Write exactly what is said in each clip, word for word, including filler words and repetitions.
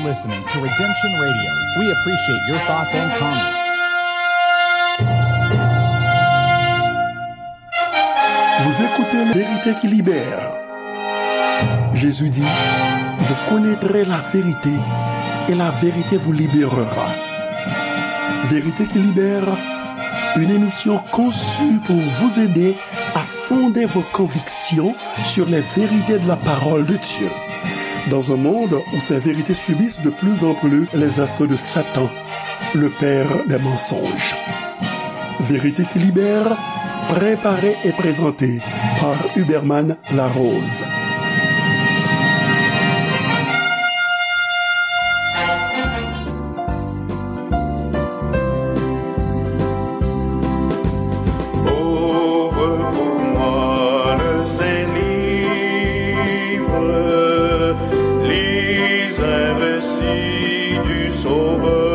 Listening to Redemption Radio. We appreciate your thoughts and comments. Vous écoutez Vérité qui libère. Jésus dit, vous connaîtrez la vérité et la vérité vous libérera. Vérité qui libère, une émission conçue pour vous aider à fonder vos convictions sur les vérités de la parole de Dieu. Dans un monde où ces vérités subissent de plus en plus les assauts de Satan, le père des mensonges. Vérité qui libère, préparée et présentée par Huberman Larose. Ouvre pour moi le Saint-Livre, lis un récit du Sauveur.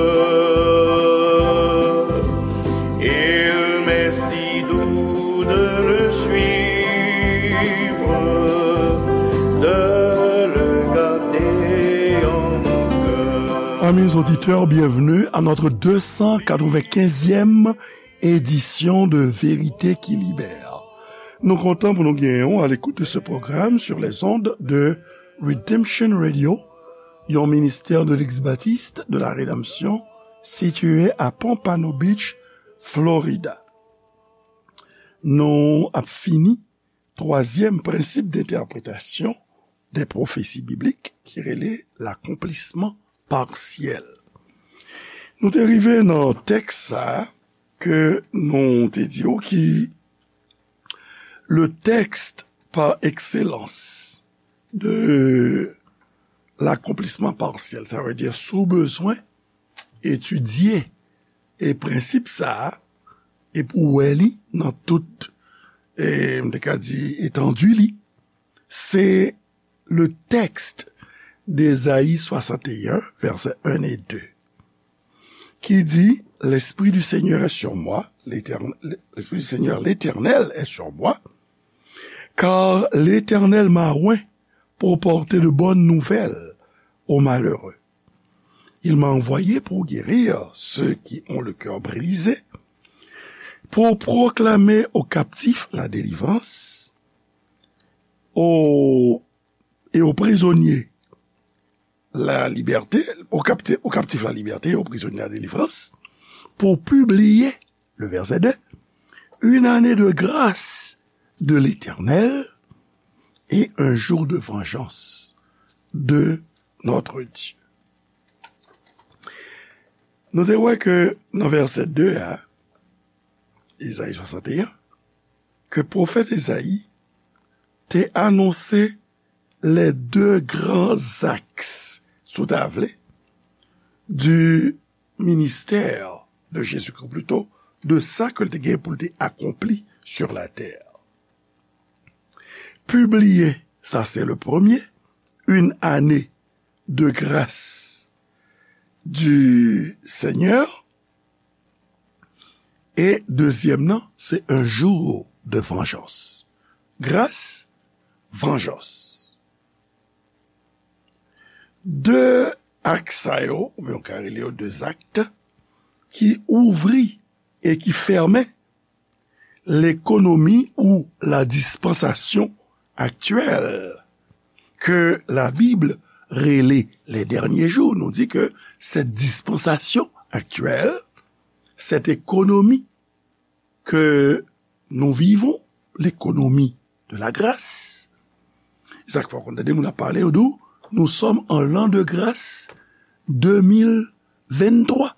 Il m'est si doux de le suivre, de le garder en mon cœur. Amis auditeurs, bienvenue à notre deux cent quatre-vingt-quinzième édition de Vérité qui Libère. Nou kontan pou nou genyen w à l'écoute de ce programme sur les ondes de Redemption Radio, yon ministère de l'Eglise Baptiste de la Rédemption situé à Pompano Beach, Florida. Nou ap fini twazyèm prensip d'entèpretasyon dè pwofesi biblik ki rele lakonplisman pasyèl. Nou te rive nan tèks sa a ke nou te di w ki le texte par excellence de l'accomplissement partiel. Sa vle di, si w bezwen etidye e prensip sa a, e pou w wè li nan tout, e, m te ka di, etandi li, se le texte d'Ésaïe soixante et un, vèsè un e de, ki di, L'Esprit du Seigneur est sur moi, l'Éternel, l'Esprit du Seigneur, l'Éternel est sur moi, car l'Éternel m'a oint pour porter de bonnes nouvelles aux malheureux. Il m'a envoyé pour guérir ceux qui ont le cœur brisé, pour proclamer aux captifs la délivrance, aux, et aux prisonniers la liberté, aux capti-, aux captifs la liberté, aux prisonniers la délivrance, pour publier, le verset deux, une année de grâce de l'Éternel et un jour de vengeance de notre Dieu. Nou te wè ke nan vèsè de a, Ezayi swasanteyen, ke pwofèt Ezayi te anonse les deux grands axes, si w ta vle, du ministère de Jésus-Christ, ou plito, de sa ke l te gen pou l te akonpli sur la terre. Publier, ça c'est le premier, une année de grâce du Seigneur. E dezyèm nan, se un jour de vengeance. Grâce, vengeance. De aks sa yo, oubyen w ka rele yo de zak, ki ouvri e ki fèmen lekonomi ou la dispansasyon aktyèl ke la Bib rele les derniers jours. Nou di ke cette dispensation actuelle, cette économie que nous vivons, l'économie de la grâce, sa k fè w konn tande moun ap pale, yo di w, nous sommes en l'an de grâce deux mille vingt-trois.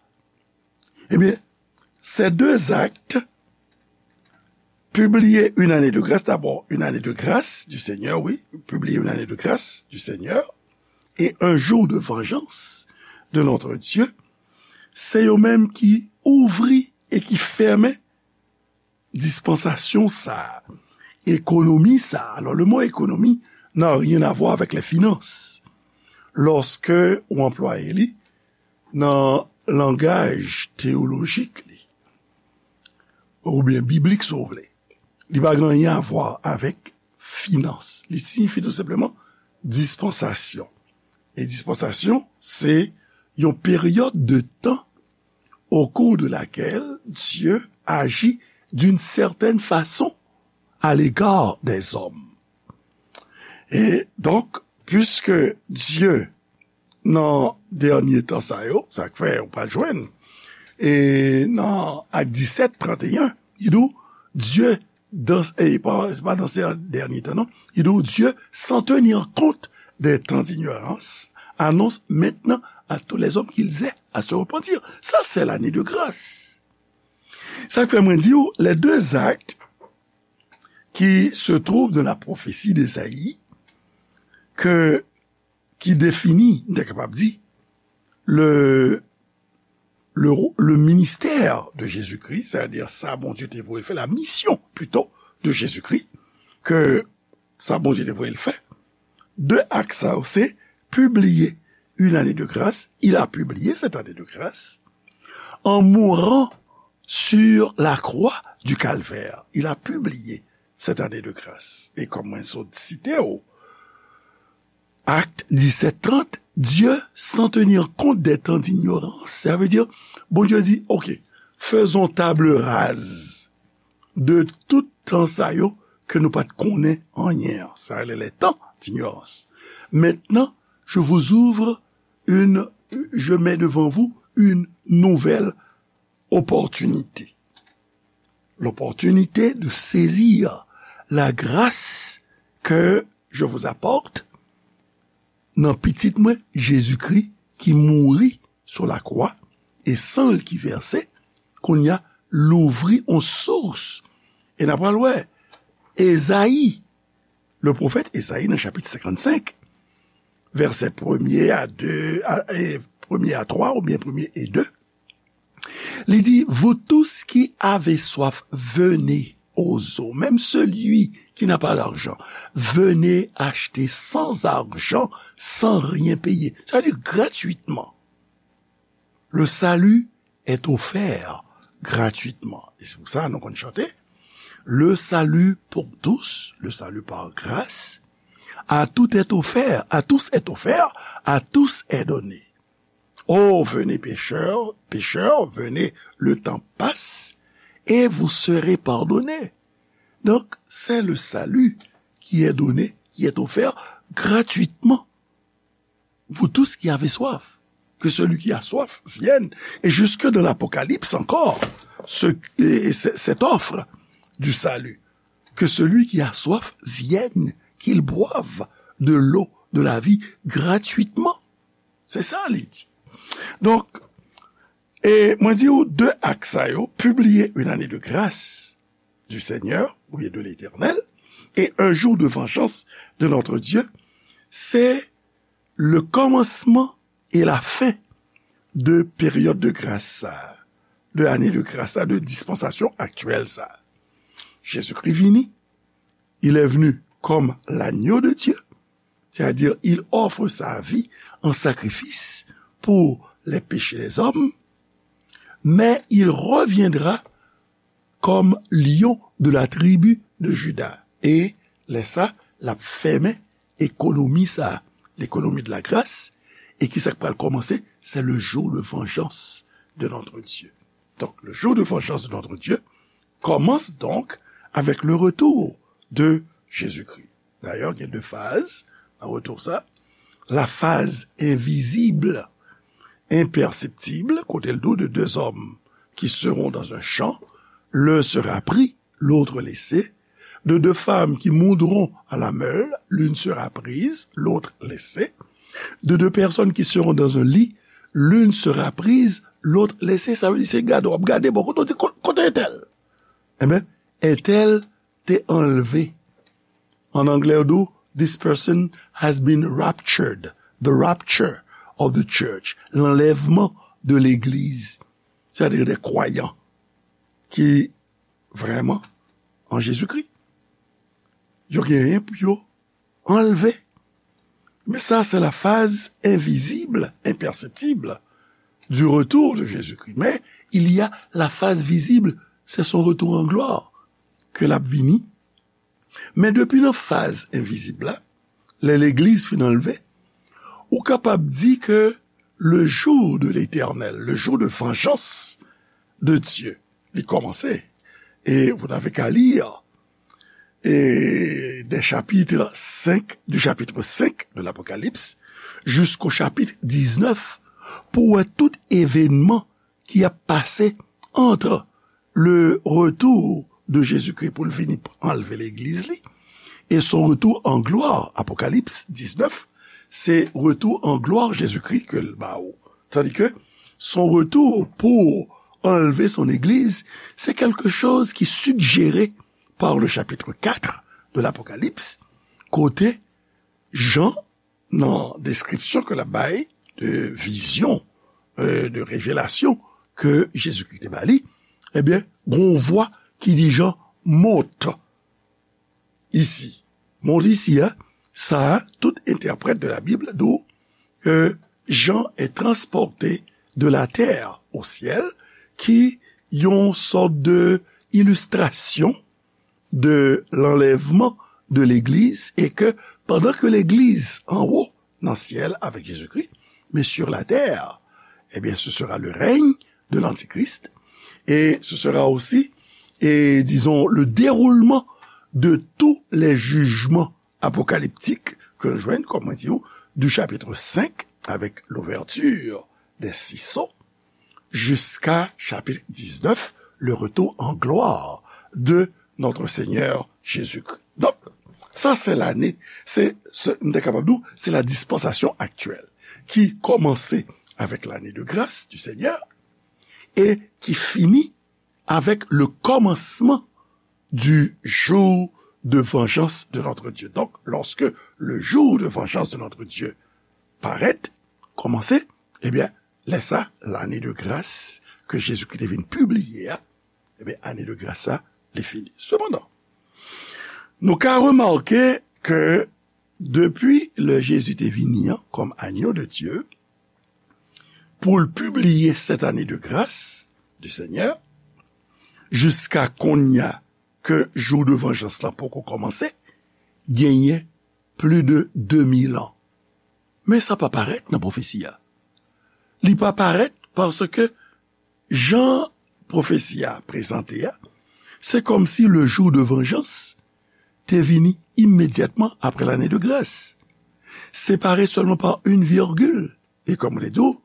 Ebyen, ces deux actes, publier une année de grâce, d'abord, une année de grâce du Seigneur, oui, publier une année de grâce du Seigneur, et un jour de vengeance de notre Dieu, se yo menm ki ouvri e ki fèmen dispansasyon sa a, ekonomi sa a. Alors, le mot économie n'a rien à voir avec les finances. Lorsque ou anplwaye li nan langaj teyolojik li, oubyen biblik, si w vle, li pa gen anyen a vwa avèk finans. Li siyifi tou senpleman dispansasyon. E dispansasyon, se yon peryòd de tan au cours de laquelle Dieu agit d'une certaine façon à l'égard des hommes. E donk, puiske Dye nan dènye tan sa yo, sa k fè ou pa jwenn, e nan Ak disèt, tranteyen, li di w, Dye dans, e pa, se pa dans ces derniers temps, non. Il dit, Dieu, sans tenir compte des temps d'ignorance, annonce maintenant à tous les hommes qu'ils aient à se repentir. Ça, c'est l'année de grâce. Sa k fè mwen di w, les deux actes qui se trouvent dans la prophétie d'Ésaïe, que, qui définit, m te kapab di, le, le, le ministère de Jésus-Christ, c'est-à-dire sa Bondye te voye l fè, la mission plutôt de Jésus-Christ, ke sa Bondye te voye l fè. De ak sa yo, se publier une année de grâce. Il a publié cette année de grâce en mourant sur la croix du Calvaire. Il a publié cette année de grâce. E kòm mwen sot site w, Acte dix-sept trente, Dieu, sans tenir compte des temps d'ignorance. Sa vle di, Bondye di, OK, faisons table rase de tout tan sa yo ke nou pa t konnen anyen an. Sa rele les temps d'ignorance. Maintenant, je vous ouvre une, je mets devant vous une nouvelle opportunité. L'opportunité de saisir la grâce que je vous apporte nan pitit mwen, Jezikri, ki mouri sou lakwa, e san l ki vèse, kounye a, louvri yon sous. E n a pral wè, Ezayi, le pwofèt Ezayi nan chapit senkannsenk, vèsè premye a de, a, e premye a twa, oubyen premye e de, li di, vous tous qui avez soif, venez aux eaux. Même celui qui n'a pas d'argent, venez acheter sans argent, sans rien payer. Sa vle di gratuitman. Le salut est offert gratuitement. E se pou sa nou konn chante, le salut pour tous, le salut par grâce, à tout est offert, à tous est offert, à tous est donné. Oh, venez pécheurs, pécheurs, venez, le temps passe, et vous serez pardonnés. Donc, c'est le salut qui est donné, qui est offert gratuitement. Vous tous qui avez soif, que celui qui a soif vienne. Et jusque dans l'Apocalypse encore, ce, et c'est, cette offre du salut, que celui qui a soif vienne, qu'il boive de l'eau de la vie gratuitement. Se sa li di. Donk, e mwen di w de ak sa yo, publier une année de grâce du Seigneur, oubyen de l'Éternel, et un jour de vengeance de notre Dieu, c'est le commencement et la fin de période de grâce sa, de année de grâce sa, de dispensation actuelle sa. Jésus-Christ vini, il est venu comme l'agneau de Dieu, c'est-à-dire il offre sa vie en sacrifice pour les péchés des hommes, mais il reviendra comme lion de la tribu de Juda. E lè sa, l ap fèmen ekonomi sa, l'économie de la grâce. E ki sa k pral kòmanse? C'est le jour de vengeance de notre Dieu. Donc, le jour de vengeance de notre Dieu commence donc avec le retour de Jésus-Christ. Dayè, gen de faz nan retou sa. La phase invisible, imperceptible, kote l di w de deux hommes qui seront dans un champ, l'un sera pris, l'autre laissé, de deux femmes qui moudront à la meule, l'une sera prise, l'autre laissée, de deux personnes qui seront dans un lit, l'une sera prise, l'autre laissée. Sa vle di, se gade, w ap gade, bon, kote w di, ko-, kote entèl? Enben, entèl te anlve. An anglè, yo di w, this person has been raptured. The rapture of the church. L'enlèvement de l'église. C'est-à-dire des croyants qui, vraiment, en Jésus-Christ, yo genyen pou yo anlve. Mais ça, c'est la phase invisible, imperceptible du retour de Jésus-Christ. Mais il y a la phase visible, c'est son retour en gloire, ke l ap vini. Men depi nan faz envizib la, lè legliz fin anlve, Ou kapab di ke le jour de l'Éternel, le jour de vengeance de Dieu, li kòmanse. Et vous n'avez qu'à lire, et des chapitres cinq, du chapitre cinq de l'Apocalypse jusqu'au chapitre dix-neuf, pou wè tout evènman ki ap pase entre le retour de Jésus-Christ pou l vini anlve legliz li, et son retour en gloire, Apocalypse dix-neuf, se retour en gloire Jésus-Christ ke l ba ou. Tandis que son retour pour enlever son église, c'est quelque chose qui suggéré par le chapitre quatre de l'Apocalypse, kote Jan, nan deskripsyon ke l ap bay de vizyon, euh, de revelasyon ke Jezikri te ba li, ebyen, gon vwa ki di Jan, monte ici. Monte ici, hein, sa, tout entèprèt de la Bible di ke Jean est transporté de la terre au ciel, ki yon sòt de ilistrasyon de l'enlèvement de l'Église, et que pendant que l'Église en haut, dans le ciel avec Jésus-Christ, mais sur la terre, eh bien, ce sera le règne de l'Antichrist, et ce sera aussi, et disons, le déroulement de tous les jugements apocalyptiques que l'on joint, comme on dit, du chapitre cinq, avec l'ouverture des six sceaux, jusqu'à chapitre dix-neuf, le retour en gloire de notre Seigneur Jésus-Christ. Donk, sa se lane, se, se, m te kapab di w, se la dispansasyon aktyèl ki kòmanse avèk lane de gras du Seigneur et qui finit avec le commencement du jour de vengeance de notre Dieu. Donc, lorsque le jour de vengeance de notre Dieu parèt, kòmanse, ebyen, lè sa, lane de gras ke Jezikri te vin pibliye a, ebyen, ane de gras sa, li fini. Sepandan, nou ka remake ke depi lè Jezi te vini an, kòm agneau de Dieu, pou l pibliye cette année de grâce du Seigneur, jiska kounye a ke jou de vanjans lan poko kòmanse, genyen plis de de mil an. Men sa pa parèt nan pwofesi a. Li pa parèt paske jan pwofesi a prezante a, se kòmsi le jour de vengeance te vini imedyatman apre lane de gras, separe sèlman pa yon virgil. E kòm mwen te di w,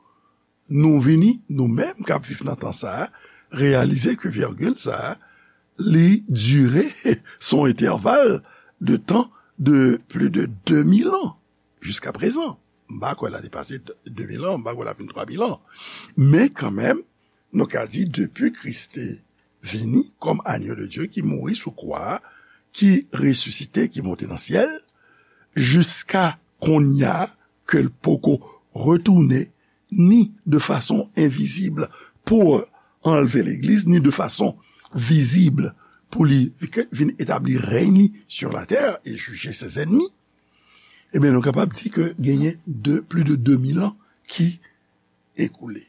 nou vini, nou menm k ap viv nan tan sa a, reyalize ke virgil sa a, li dire, se yon entèval de tan de plis de de mil an, jiska prezan. M pa kwè l a depase de mil an, m pa kwè l a vin twa mil an. Men kanmenm, nou ka di, depi Kris te vini kòm agneau de Dieu ki mouri sou kwa a, ki resisite, ki monte nan syèl, jiska kounye a ke l poko retounen, ni de fason envizib pou anlve legliz, ni de fason vizib pou li vin etabli rèy li sur la terre et juger ses ennemis, ebyen, nou kapab di ke genyen de, plis de de mil an ki ekoule.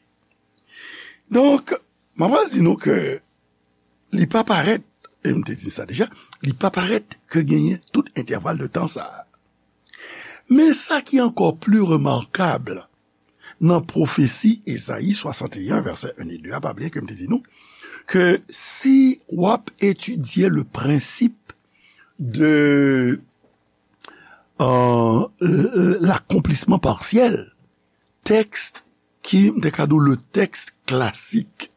Donk, m ap pral di nou ke li pa parèt, e m te di sa deja, li pa parèt ke genyen tout entèval de tan sa a. Men sa ki ankò pli remakab nan pwofesi Ezayi swasanteyen, vèsè en e de a, pa bliye ke m te di nou, ke si w ap etidye le prensip de, euh, l-, l-, l'accomplissement partiel, tèks ki, m te ka di w, le tèks klasik.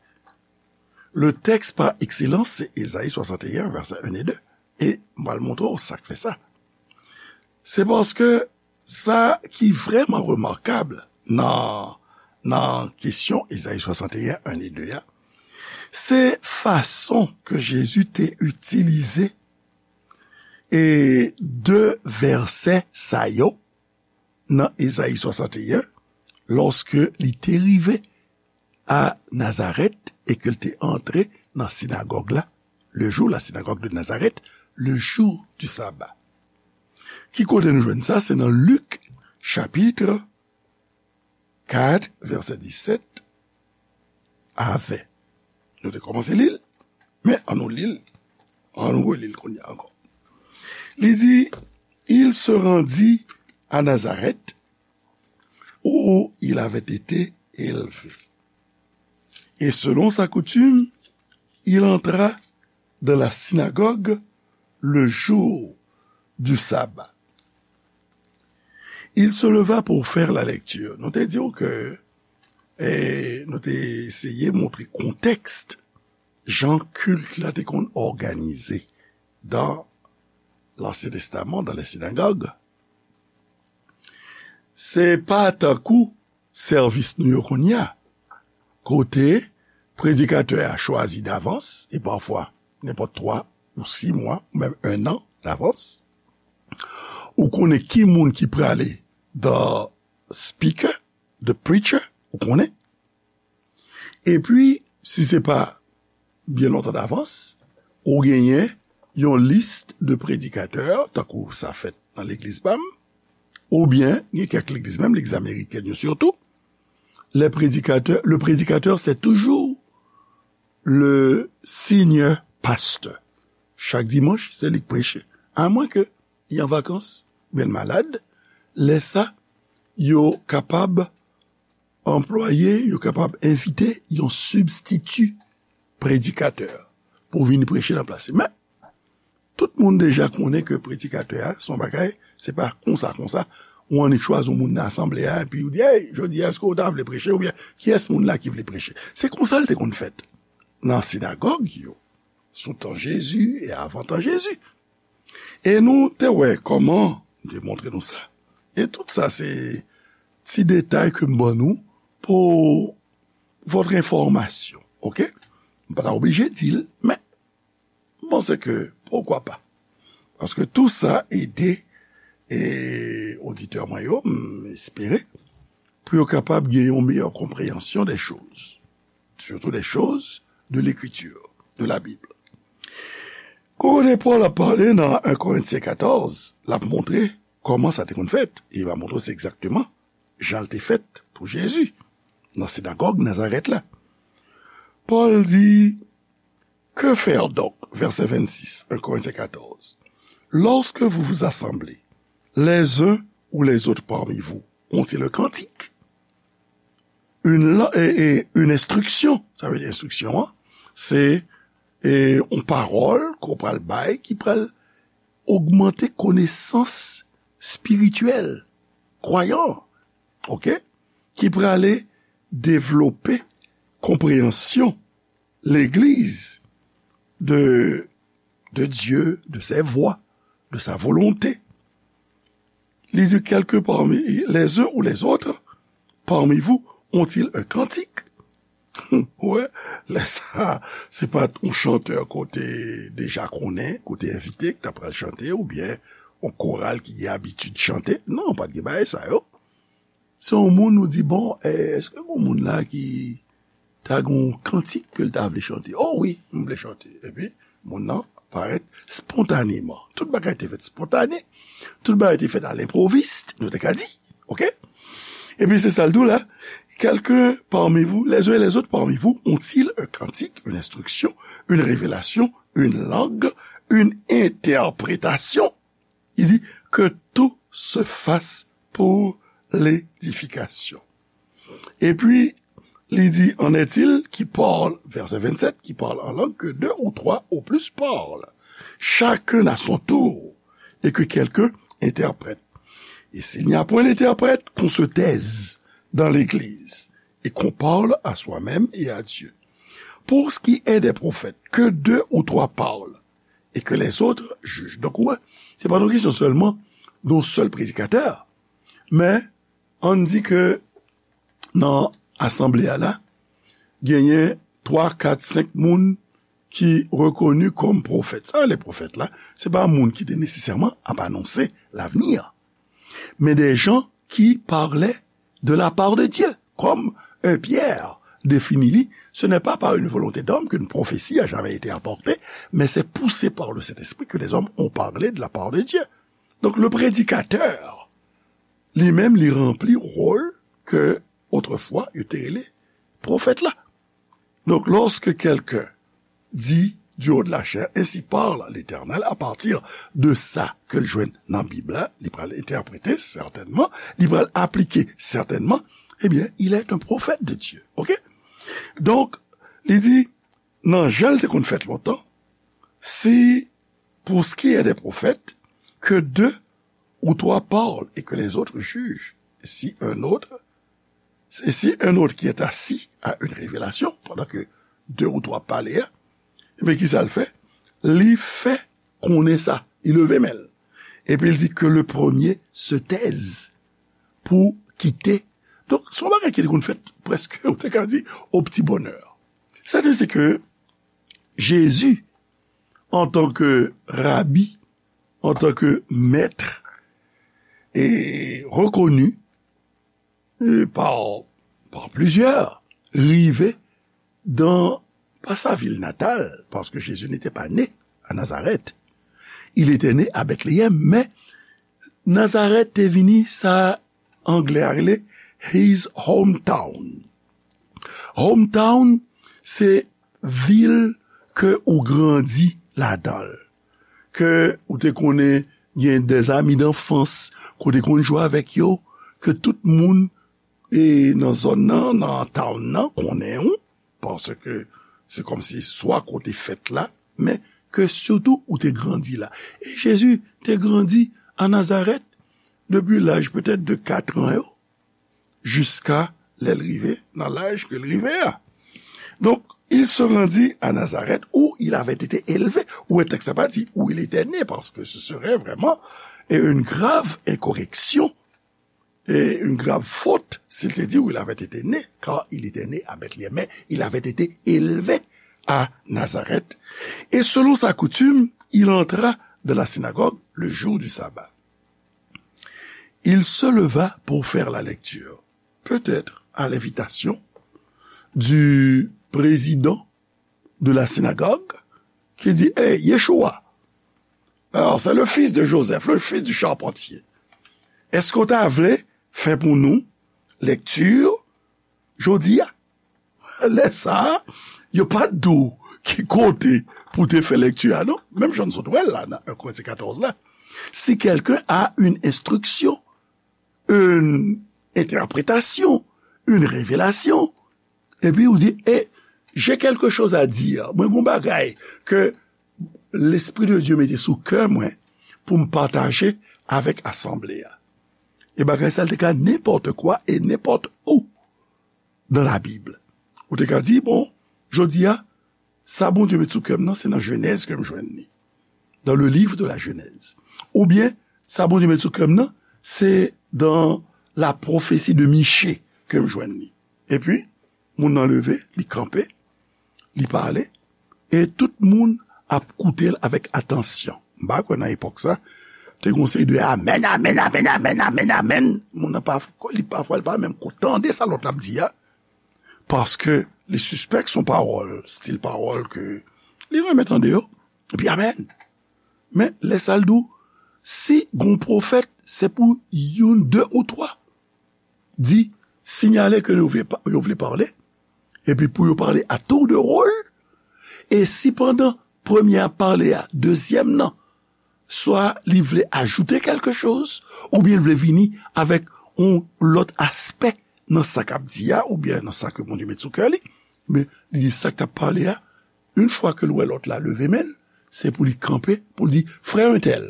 Le tèks pa ekselans, se Ezayi swasanteyen, vèsè en e de. E m pral montre w sa k fè sa. Se paske sa ki vrèman remakab nan, nan kesyon Ezayi swasanteyen, en e de a, se fason ke Jezi te itilize e de vèsè sa yo nan Ezayi swasanteyen, lòske li te rive a Nazarèt e ke l te antre nan sinagòg la, le jour, la synagogue de Nazareth, le jour du sabbat. Ki kote nou jwenn sa? Se nan Lik, chapit kat, vèsè disèt a ven. Nou te kòmanse li l, men ann nou li l, ann nou reli l kounye a ankò. Li di, il se rendit à Nazareth, où il avait été élevé. Et selon sa coutume, il entra dans la synagogue le jour du sabbat. Il se leva pour faire la lecture. Nou te di w ke, eh, nou te eseye montre kontèks jan kilt la te konn òganize dans l'Ancien Testament, dans les synagogues. Se pa tankou sèvis nou yo kounye a, kote predikatè a chwazi davans, e pafwa nenpòt twa ou sis mwa, ou menm un an davans, ou konnen ki moun ki prale the speaker, the preacher, ou konnen. Epi, si se pa byen lontan davans, ou genyen yon lis de predikatè, tankou sa fèt nan legliz pa m, oubyen gen kèk legliz, menm legliz amerikèn yo sitou, les prédicateurs, le prédicateur, c'est toujours le senior pasteur. Chak dimanch, se li k preche. Amwen ke li an vakans, oubyen l malad, lè sa, yo kapab anplwaye, yo kapab envite yon sibstiti predikatè pou vin preche nan plas li. Men, tout moun deja konnen ke predikatè a, se yon bagay, se pa konsa, konsa, ou annik chwazi yon moun nan asanble a, epi ou di, "Hey, jodi a, èske w ta vle preche?" Oubyen, "Kiyès moun la ki vle preche?" Se konsa l te konn fèt nan sinagòg yo, sou tan Jezi e avan tan Jezi. E nou te wè kòman, m te montre nou sa. E tout sa, se ti detay ke m ban nou pou votre information, oke? M pa ta oblije di l, men m panse ke, poukwa pa? Paske tou sa ede, e, oditè mwen yo, m espere, pou yo kapab gen yon meyè konpreyansyon des choses, surtout des choses de l'écriture, de la Bible. Kote Pòl ap pale nan un Korentyen katòz, l ap montre kòman sa te konn fèt. E l va montre se egzakteman jan l te fèt pou Jezi, nan sinagòg Nazarèt la. Pòl di, Que faire donc? Verset vingt-six, un Corinthiens quatorze. Lorsque vous vous assemblez, les uns ou les autres parmi vous ont-ils un cantique? Une, la- et, et une instruction, sa vle di enstriksyon an, se e, yon pawòl ke w pral bay ki pral ogmante konesans espirityèl kwayan, oke? Ki prale devlope konpreyansyon legliz de, de Dieu, de ses voies, de sa volonté. Li di, quelques parmi les uns ou les autres parmi vous ont-ils un cantique? Wè, lè sa, se pa t yon chantè ke w te deja konnen, ke w te envite, ki ta pral chante, oubyen yon koral ki gen abitid chante. Non, pa t gen bagay sa yo. Se yon moun ou di, bon, eh, èske gen yon moun la ki ta gen yon kantik ke l ta vle chante? Oh wi, m vle chante. Epi, moun nan parèt spontaneman. Tout bagay te fèt spontane. Tout bagay te fèt a lenpwovis, nou te ka di. Oke? Epi se sa l di w la, quelques parmi vous, les uns et les autres parmi vous ont-ils un cantique, une instruction, une révélation, une langue, une interprétation? Il dit, que tout se fasse pour l'édification. Epi, li di, en est-il qui parle, verset vingt-sept, qui parle en langue, que deux ou trois au plus parlent, chacun à son tour, et que quelqu'un interprète. Et s'il n'y a point d'interprète, qu'on se taise dans l'église, et qu'on parle à soi-même et à Dieu. Pour ce qui est des prophètes, que deux ou trois parlent, et que les autres jugent. Donk, ou wè, se pa yon kesyon sèlman de yon sèl predikatè, men ann di ke nan asanble a la, genyen twa, kat, senk moun ki rekoni kòm pwofèt. Sa, les prophètes la, se pa moun ki te nesesèman ap anonse lavni an, mais des gens qui parlaient de la part de Dieu. Comme euh, Pierre définit li, ce n'est pas par une volonté d'homme qu'une prophétie a jamais été apportée, mais c'est poussé par le Saint-Esprit que les hommes ont parlé de la part de Dieu. Donc, le prédicateur, li menm, li ranpli wòl ke otrefwa yo te rele pwofèt la. Donc, lorsque quelqu'un dit du haut de la chair, ainsi parle l'Éternel, à partir de sa ke l jwenn nan Bib la, li pral entèprete sètènman, li pral aplike sètènman, ebyen, il est un prophète de Dieu. Ok? Donk, li di, nan jan l te konn fèt lontan, si pour ce qui est des prophètes, que deux ou trois parlent et que les autres jugent, si un autre, et si un autre qui est assis a une révélation, pandan ke de ou twa pale a, ebyen, kisa l fè? Li fè konnen sa. Li leve men l. Epi l di que le premier se taise pour quitter. Donk, se yon bagay ki te konn fèt prèske, ou te ka di, au petit bonheur. C'est ainsi que Jésus, en tant que rabbi, en tant que maître, et reconnu, euh, par, par plusieurs, rive dans, pas sa ville natale, parce que Jésus n'était pas né à Nazareth. Il était né à Bethléem, men Nazareth te vini sa anglè a rele his hometown. Hometown, se vil ke ou grandi ladan l, ke ou te konnen gen des amis d'enfance, ke w te konn jwe avèk yo, ke tout moun e nan zòn nan, nan town nan, konnen w, paske se kòmsi swa kote fèt la, men ke sitou ou te grandi la. E Jezi te grandi a Nazarèt depi laj petèt de kat an yo, jiska lè l rive nan laj ke l rive a. Donc, il se rendit à Nazareth où il avait été élevé. Ou wè tèks la pa di où il était né, parce que ce serait vraiment une grave incorrection et une grave faute s'il te dit où il avait été né, car il était né à Bethléem, mais il avait été élevé à Nazareth. Et selon sa coutume, il entra dans la synagogue le jour du sabbat. Il se leva pour faire la lecture, peut-être à l'invitation du président de la synagogue, qui dit, hey, Yeshua, alors c'est le fils de Joseph, le fils du charpentier. Èske w ta vle fè pou nou lèkti jodi a? Lè sa a, yo pa t di w ki kote pou te fè lèkti a, non? Menm jan n sot wè l la, nan un Korentyen katòz la. Si quelqu'un a une instruction, une interprétation, une révélation, epi ou di, eh, j'ai quelque chose à dire. Mwen gon bagay ke Lespri de Dye mete sou kè mwen pou m pataje avèk asanble a. E bagay sa l te ka nenpòt kwa e nenpòt ou dans la Bible. Ou te ka di, bon, jodi a, sa Bondye met sou kè m nan, se nan Jenèz ke m jwenn li. Dans le livre de la Genèse. Oubyen, sa Bondye met sou kè m nan, se dans la prophétie de Michée ke m jwenn li. Epi, moun nan leve, li kanpe, li pale, e tout moun ap koute l avèk atansyon. M pa kwè nan epòk sa, te gon seri de amèn, amèn, amèn, amèn, amèn, amèn, amèn. Moun nan pa, li pafwa, li pa menm ko tande sa lòt la ap di a, paske li sispèk se yon pawòl, stil pawòl ke li renmen tande yo. Epi amèn. Men, lè sa l di w, si gon pwofèt, se pou youn, de ou twa di, sinyale ke yo vle pa-, yo vle pale, epi pou yo pale a tour de rôle, e si pandan premye a pale a, dezyèm nan, swa li vle ajoute kèlke choz, oubyen l vle vini avèk yon lòt aspè nan sa k ap di a, oubyen nan sa ke Bondye met sou kè li, men li di sa k t ap pale a, yon fwa ke l wè lòt la leve men l, se pou li kanpe, pou l di, frè entèl,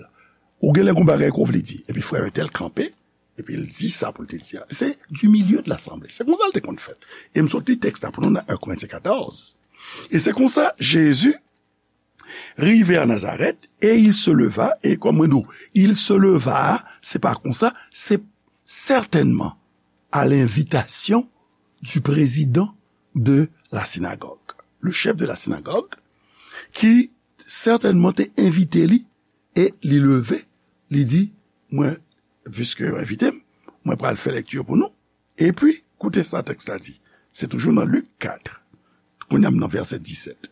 ou genlè gon bagay ke w vle di. Epi frè entèl kanpe, epi l di sa pou l te di a. Se du milieu de l'assemblée. Se konsa l te konn fèt. E m sot li tèks la pou nou nan un Korentyen katòz. E se konsa, Jezi rive a Nazarèt, e il se leva, e kòm mwen di w, il se leva, se pa konsa, se certainement à l'invitation du président de la synagogue, le chef de la synagogue, ki sètènman te envite li, e li leve, li di, mwen, piske yo envite m, mwen pral fè lèkti pou nou. Epi, koute sa tèks la di. Se toujou nan Lik kat. Kounye a m nan vèsè disèt.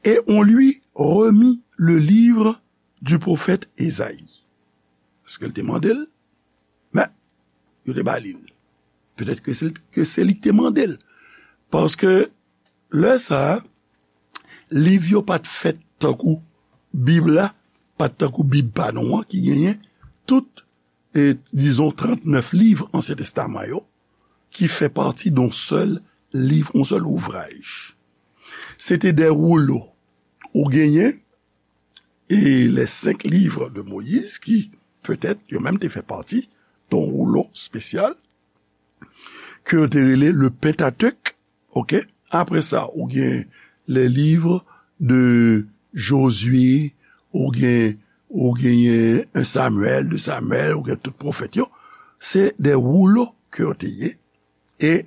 Et on lui remit le livre du prophète Ésaïe. Èske l te mande l? Men, yo te ba li l. Petèt ke se, ke se li ki te mande l. Paske lè sa a, Liv yo pa t fèt tankou Bib la, pa t tankou Bib pa nou an ki genyen tout, e, dizon, trannèf liv Ansyen Testaman yo, ki fè pati d on sèl liv, on sèl ouvraj. Se te de woulo. Ou genyen, e, les cinq livres de Moïse, ki, petèt, yo menm te fè pati d on woulo espesyal, ke yo te rele le Pentateuch, oke? Apre sa, ou gen les livres de Josué, ou gen, ou genyen un Samuel, deux Samuel, ou gen tout pwofèt yo. Se de woulo ke yo te ye, e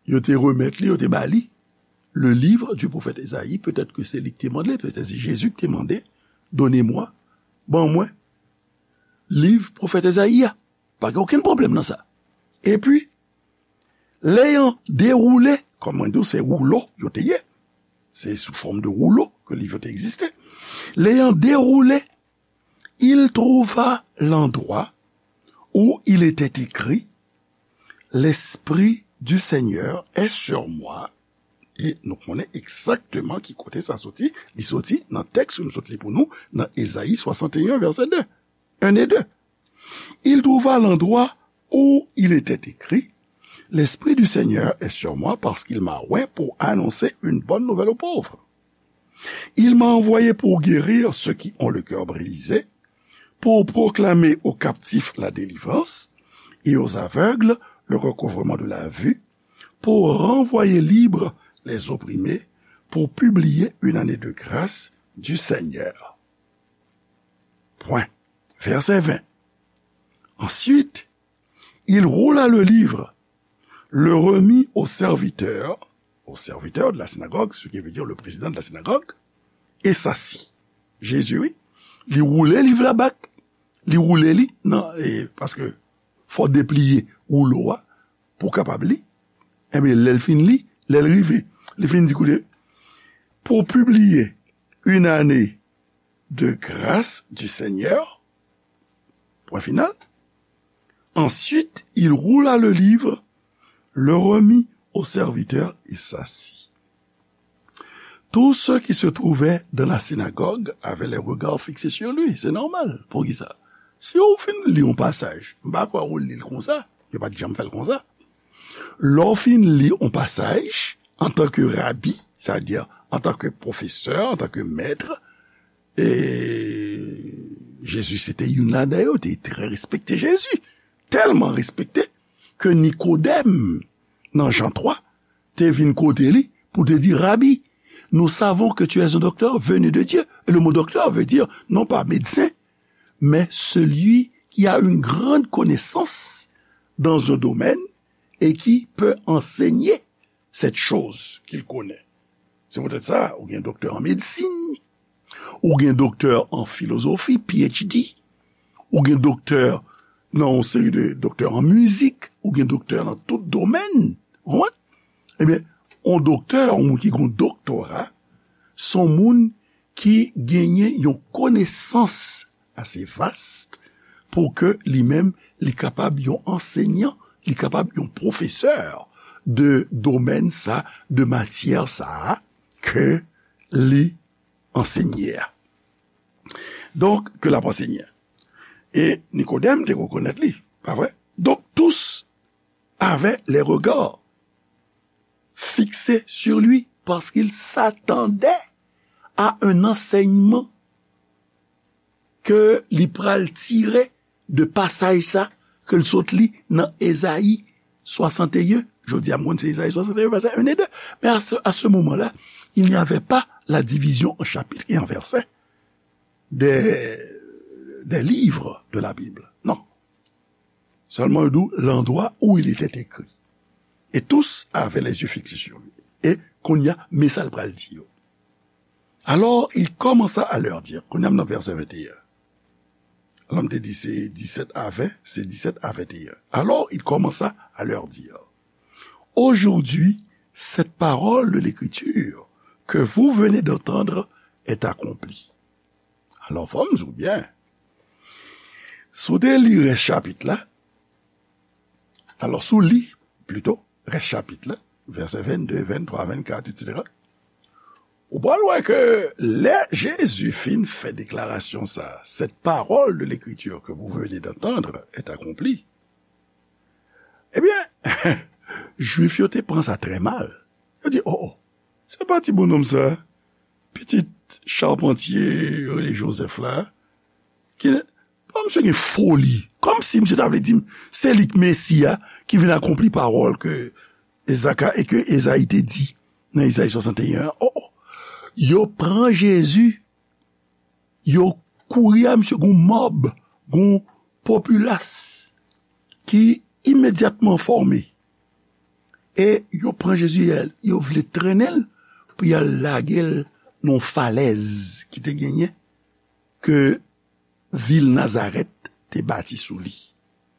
yo te remèt li, yo te ba li le livre du prophète Esaïe, petèt ke se li ki te mande, petèt se Jezi ki te mande, donnez-moi, ban mwen liv pwofèt Ezayi a. Pa gen okenn pwoblèm nan sa. Epi, l'ayant déroulé, kòm mwen di w, se woulo yo te ye. Se sou fòm de woulo ke liv yo te egziste. L'ayant déroulé, il trouva l'endroit où il était écrit, L'Esprit du Seigneur est sur moi. E nou konnen egzakteman ki kote sa soti. Li soti nan tèks ke m sot li pou nou, nan Ezayi swasanteyen, vèsè de. Un et deux. Il trouva l'endroit où il était écrit, L'Esprit du Seigneur est sur moi parce qu'il m'a oint pour annoncer une bonne nouvelle aux pauvres. Il m'a envoyé pour guérir ceux qui ont le cœur brisé, pour proclamer aux captifs la délivrance et aux aveugles le recouvrement de la vue, pour renvoyer libres les opprimés, pour publier une année de grâce du Seigneur. Point. Verset vingt. Ensuite, il roula le livre, le remit au serviteur, au serviteur de la synagogue, ce qui veut dire le président de la synagogue, et s'assit. Jezi, wi, li woule liv la bak, li woule li nan, e, paske fò depliye woulo a pou w kapab li. Ebyen, lè l fin li, lè l rive, li fin di, koute, pour publier une année de grâce du Seigneur, point final. Ensuite, il roula le livre, le remit au serviteur et s'assit. Tous ceux qui se trouvaient dans la synagogue avaient les regards fixés sur lui. Se nòmal. Poukisa? Si w fin li yon pasaj, m pa kwè ou li l konsa. Yo pa t janm fè l konsa. Lè w fin li yon pasaj, antanke rabi, sètadi antanke pwofesè, antanke mèt, e Jezi se te youn ladan yo, te trè respekte Jezi. Tèlman respekte ke Nikodèm, nan Jan twa, te vin kote li pou te di, Rabi, nous savons que tu es un docteur venu de Dieu. Et le mot docteur veut dire non pas médecin, mais celui qui a une grande connaissance dans un domaine et qui peut enseigner cette chose qu'il connaît. Se poutèt sa, ou gen doktè an medsin, ou gen doktè an filozofi, P H D, ou gen doktè nan yon seri de doktè an mizik, ou gen doktè nan tout domèn. Ou konprann? Ebyen, yon doktè, yon moun ki gen yon doktora, se yon moun ki genyen yon konesans ase vas pou ke li menm, li kapab yon ansenyan, li kapab yon pwofesè de domèn sa, de matyè sa a ke li ansenye a. Donk, ke l ap ansenye a. E Nikodèm te rekonèt li, pa vre? Donc, tous avaient les regards fixés sur lui parce qu'ils s'attendaient à un enseignement ke li pral tire de pasaj sa ke l sot li nan Ezayi swasanteyen. Jodi a, m konn se Ezayi swasanteyen, vèsè en e de. Men a se, a se moman la, il n'y avait pas la division en chapitres et en versets des, des livres de la Bible. Non. Sèlman yo di w, l'endroit où il était écrit. Et tous avaient les yeux fixés sur lui. E kounye a, men sa l pral di yo. Alors, il commença à leur dire, kounye a m nan vèsè venteyen. Alò, m te di se disèt a ven, se disèt a venteyen. Alors, il commença à leur dire, Aujourd'hui, cette parole de l'Écriture que vous venez d'entendre est accomplie. Alò, fò m di w byen. Si w te li rès chapit la, alò, si w li, plito, rès chapit la, vèsè vennde, venntwa, vennkat, etsetera, Ou pral wè ke lè Jezi fin fè deklarasyon sa, cette parole de l'Écriture que vous venez d'entendre est accomplie. Ebyen, Jwif yo te pran sa trè mal. Yo di, oh, oh, se pa ti bonnonm sa, pitit chapantye Rene Joseph la, ki pa misye gen foli, kòmsi misye ta vle di m se li k Mesi a, ki vin akonpli pawòl ke Ezaka e ke Ezayi te di nan Ezayi swasanteyen an. Oh, oh. Yo pran Jezi, yo kouri a misye, gon mòb, gon popilas ki imedyatman fòme. E yo pran Jezi, yo vle trennen l pou y al lage l nan yon falèz ki te genyen, ke vil Nazarèt te bati sou li.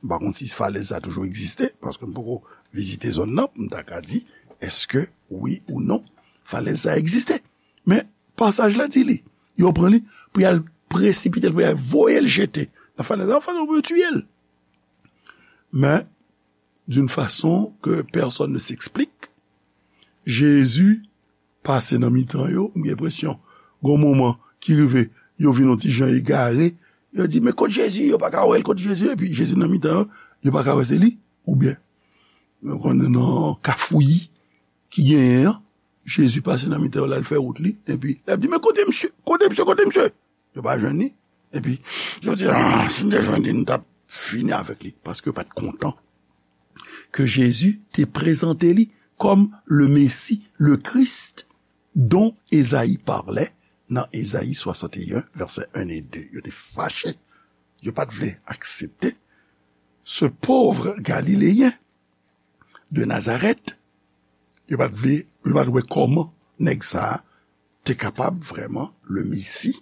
M pa konn si falèz sa toujou egziste, paske m poko vizite zòn nan pou m ta ka di èske wi ou non falèz sa egziste. Men pasaj la di li, yo pran li pou y al presipite l, pou y al voye l jete nan falèz la, fason pou yo tiye l. Men d'une façon que personne ne s'explique, Jezi pase nan mitan yo, m gen enpresyon, gon moman ki rive, yo vin yon ti jan egare, yo di, men kot Jezi? Yo pa ka wè l, kot Jezi? Epi Jezi nan mitan yo, yo pa ka wè se li, oubyen, yo konn nan kafouyi ki genyen an, Jezi pase nan mitan yo, l al fè wout li, epi l ap di, men kote misye? Kote misye? Kote misye? Yo pa jwenn li. Epi, yo di, ah, si n te jwenn li, n t ap fini avèk li. Paske yo pa t kontan ke Jezi te prezante li kòm le Messie, le Christ, dont Esaïe parlait nan Ezayi swasanteyen, vèsè en e de. Yo te fache. Yo pa t vle aksepte ce pauvre Galiléen de Nazareth, yo pa t vle, yo pa t wè kòman nèg sa a te kapab vrèman le Messie,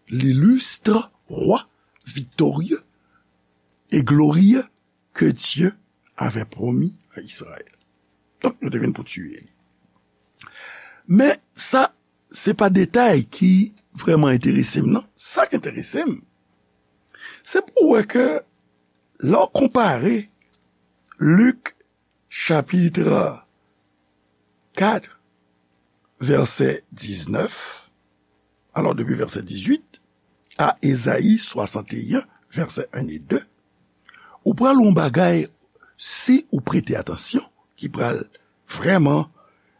l'illustre roi victorieux et glorieux que Dieu avait promis à Israël. Donk, yo te vin pou tiye li. Men sa, se pa detay ki vrèman enterese m, non. Sa k enterese m, se pou w wè ke lè w konpare Lik chapit kat, vèsè diznèf, alò depi vèsè dizuit, a Ezayi swasanteyen, vèsè en e de, ou pral wè yon bagay, si ou prete atansyon, ki pral vrèman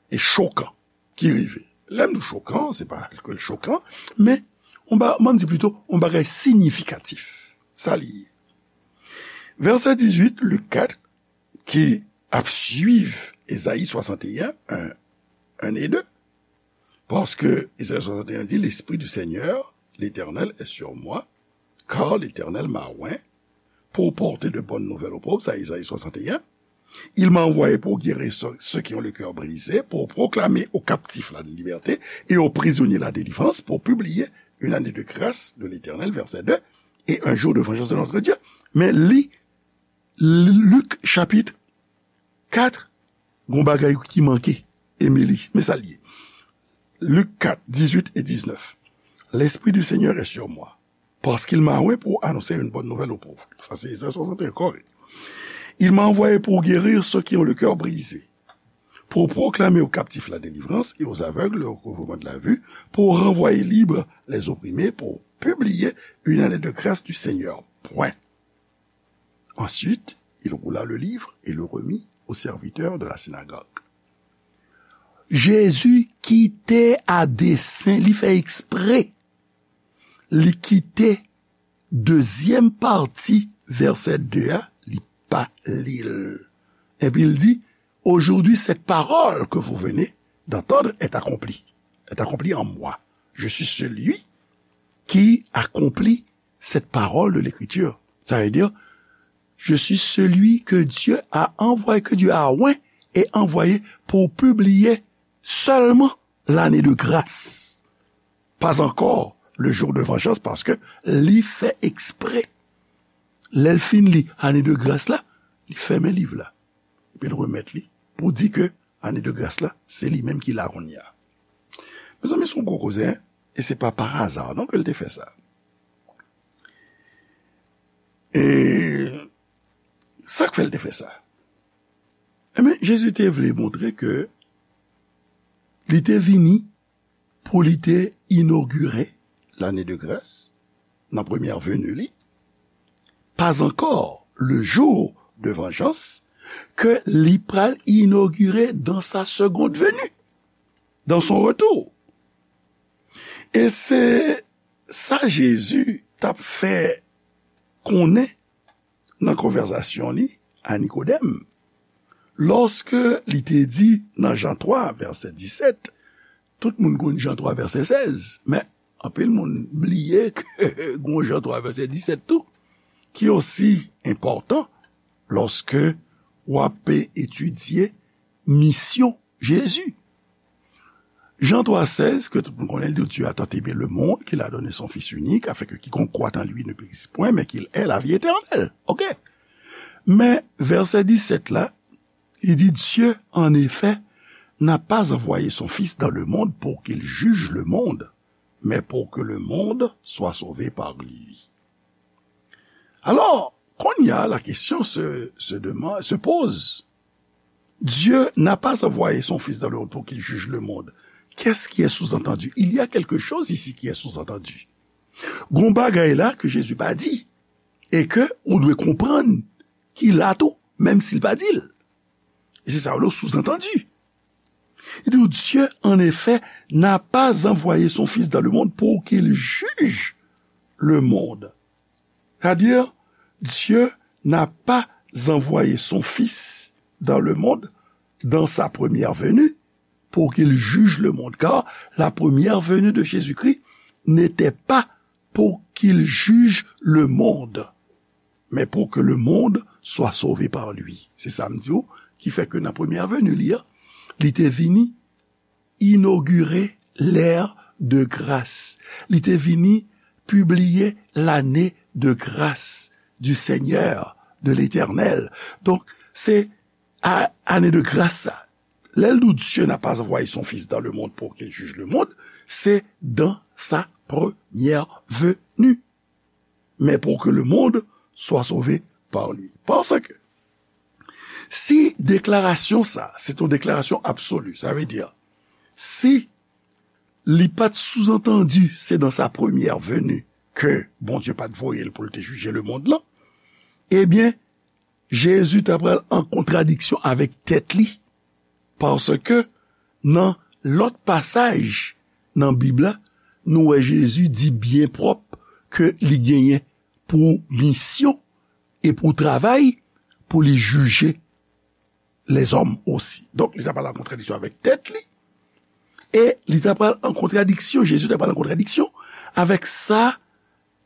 e chokan, ki rive. Lè m di chokan, se pa ke l chokan, men, on ba, m di plito, yon bagay siyifikatif. Sa li ye. Vèsè dizuit, Lik kat, ki ap swiv Ezayi swasanteyen, en, en e de. Paske Ezayi swasanteyen di, l'Esprit du Seigneur, l'Éternel, est sur moi, car l'Éternel m'a oint pour porter de bonnes nouvelles aux pauvres, sa Ezayi swasanteyen. Il m'a envoyé pour guérir ceux, ceux qui ont le cœur brisé, pour proclamer aux captifs la liberté et aux prisonniers la délivrance, pour publier une année de grâce de l'Éternel, verset deux, et un jour de vengeance de notre Dieu. Men li, Lik chapit kat, gon bagay ki manke, Emily, men sa l ye. Lik kat, dizuit e diznèf. L'Esprit du Seigneur est sur moi, parce qu'il m'a oint pour annoncer une bonne nouvelle aux pauvres. Sa se Ezayi swasanteyen kòrèk. Il m'a envoyé pour guérir ceux qui ont le cœur brisé, pour proclamer aux captifs la délivrance et aux aveugles le recouvrement de la vue, pour renvoyer libres les opprimés, pour publier une année de grâce du Seigneur. Point. Ensuite, il roula le livre et le remit au serviteur de la synagogue. Jezi kite a desen, li fè ekspre. Li kite dezyèm pati vèsè de a, li pa li l. Epi l di, aujourd'hui, cette parole que vous venez d'entendre est accomplie. Est accomplie en moi. Je suis celui qui accomplit cette parole de l'Écriture. Ça veut dire, je suis celui que Dieu a envoyé, que Dieu a oint et envoyé pour publier seulement l'année de grâce. Pas encore le jour de vengeance, paske li fè ekspre. Lè l fin li ane de gras la, li fèmen liv la. Epi l remèt li pou di ke ane de gras la, se li menm ki la kounye a. Mezanmi, se yon gwo koze, en? E se pa pa aza non ke l te fè sa. E sa k fè l te fè sa? Enben, Jezi te vle montre ke li te vini pou li te inogire lane de gras nan premyè veni li, pas encore le jour de vengeance, ke li pral inogire dans sa seconde venue, dans son retour. E se sa Jezi t ap fè konnen nan konvèsasyon li a Nikodèm, lòske li te di nan Jan twa, vèsè disèt, tout moun konn Jan twa, vèsè sèz, men anpil moun bliye ke gon Jan twa, vèsè disèt tou, ki osi enpòtan lòske w ap etidye misyon Jezi. Jan twa sèz, ke tout moun konnen, li di, Dieu a tant aimé le monde qu'il a donné son Fils unique, afin que quiconque croit en lui ne périsse point, mais qu'il ait la vie éternelle. Ok. Men vèsè disèt la, li di, Dieu, en effet, n'a pas envoyé son Fils dans le monde pour qu'il juge le monde, mais pour que le monde soit sauvé par lui. Alors, kounye a, la question se, se demande, se pose. Dieu n'a pas envoyé son Fils dans le monde pour qu'il juge le monde. Qu'est-ce qui est sous-entendu? Il y a quelque chose ici qui est sous-entendu. Gon bagay la ke Jezi pa di, e ke ou dwe konprann ki la tou, menm si l pa di l. E se sa yo rele sous-entendu. Li di, Dieu, en effet, n'a pas envoyé son Fils dans le monde pour qu'il juge le monde. C'est-à-dire, Dieu n'a pas envoyé son Fils dans le monde, dans sa première venue, pour qu'il juge le monde, car la première venue de Jésus-Christ n'était pas pour qu'il juge le monde, mais pour que le monde soit sauvé par lui. Se sa m di w, ki fè ke nan premyè veni li a, li te vini inogire l'ère de grâce. Li te vini pibliye lane de gras du Seigneur, de l'Éternel. Donk, se a, ane de gras sa. Lè l di, Dieu n'a pas envoyé son Fils dans le monde pour qu'il juge le monde, c'est dans sa première venue, mais pour que le monde soit sauvé par lui. Paske si deklarasyon sa, se yon deklarasyon absoli, sa vle di, si li pa t souzantandi se dans sa première venue ke Bondye pa t voye l pou l te jije lemonn lan, ebyen, Jezi ta pral an kontradiksyon avèk tèt li, paske nan lòt pasaj nan Bib la, nou wè Jezi di byen pwòp ke li genyen pou misyon e pou travay pou li jije lèzòm osi. Donk, li ta pral an kontradiksyon avèk tèt li, e li ta pral an kontradiksyon, Jezi ta pral an kontradiksyon avèk sa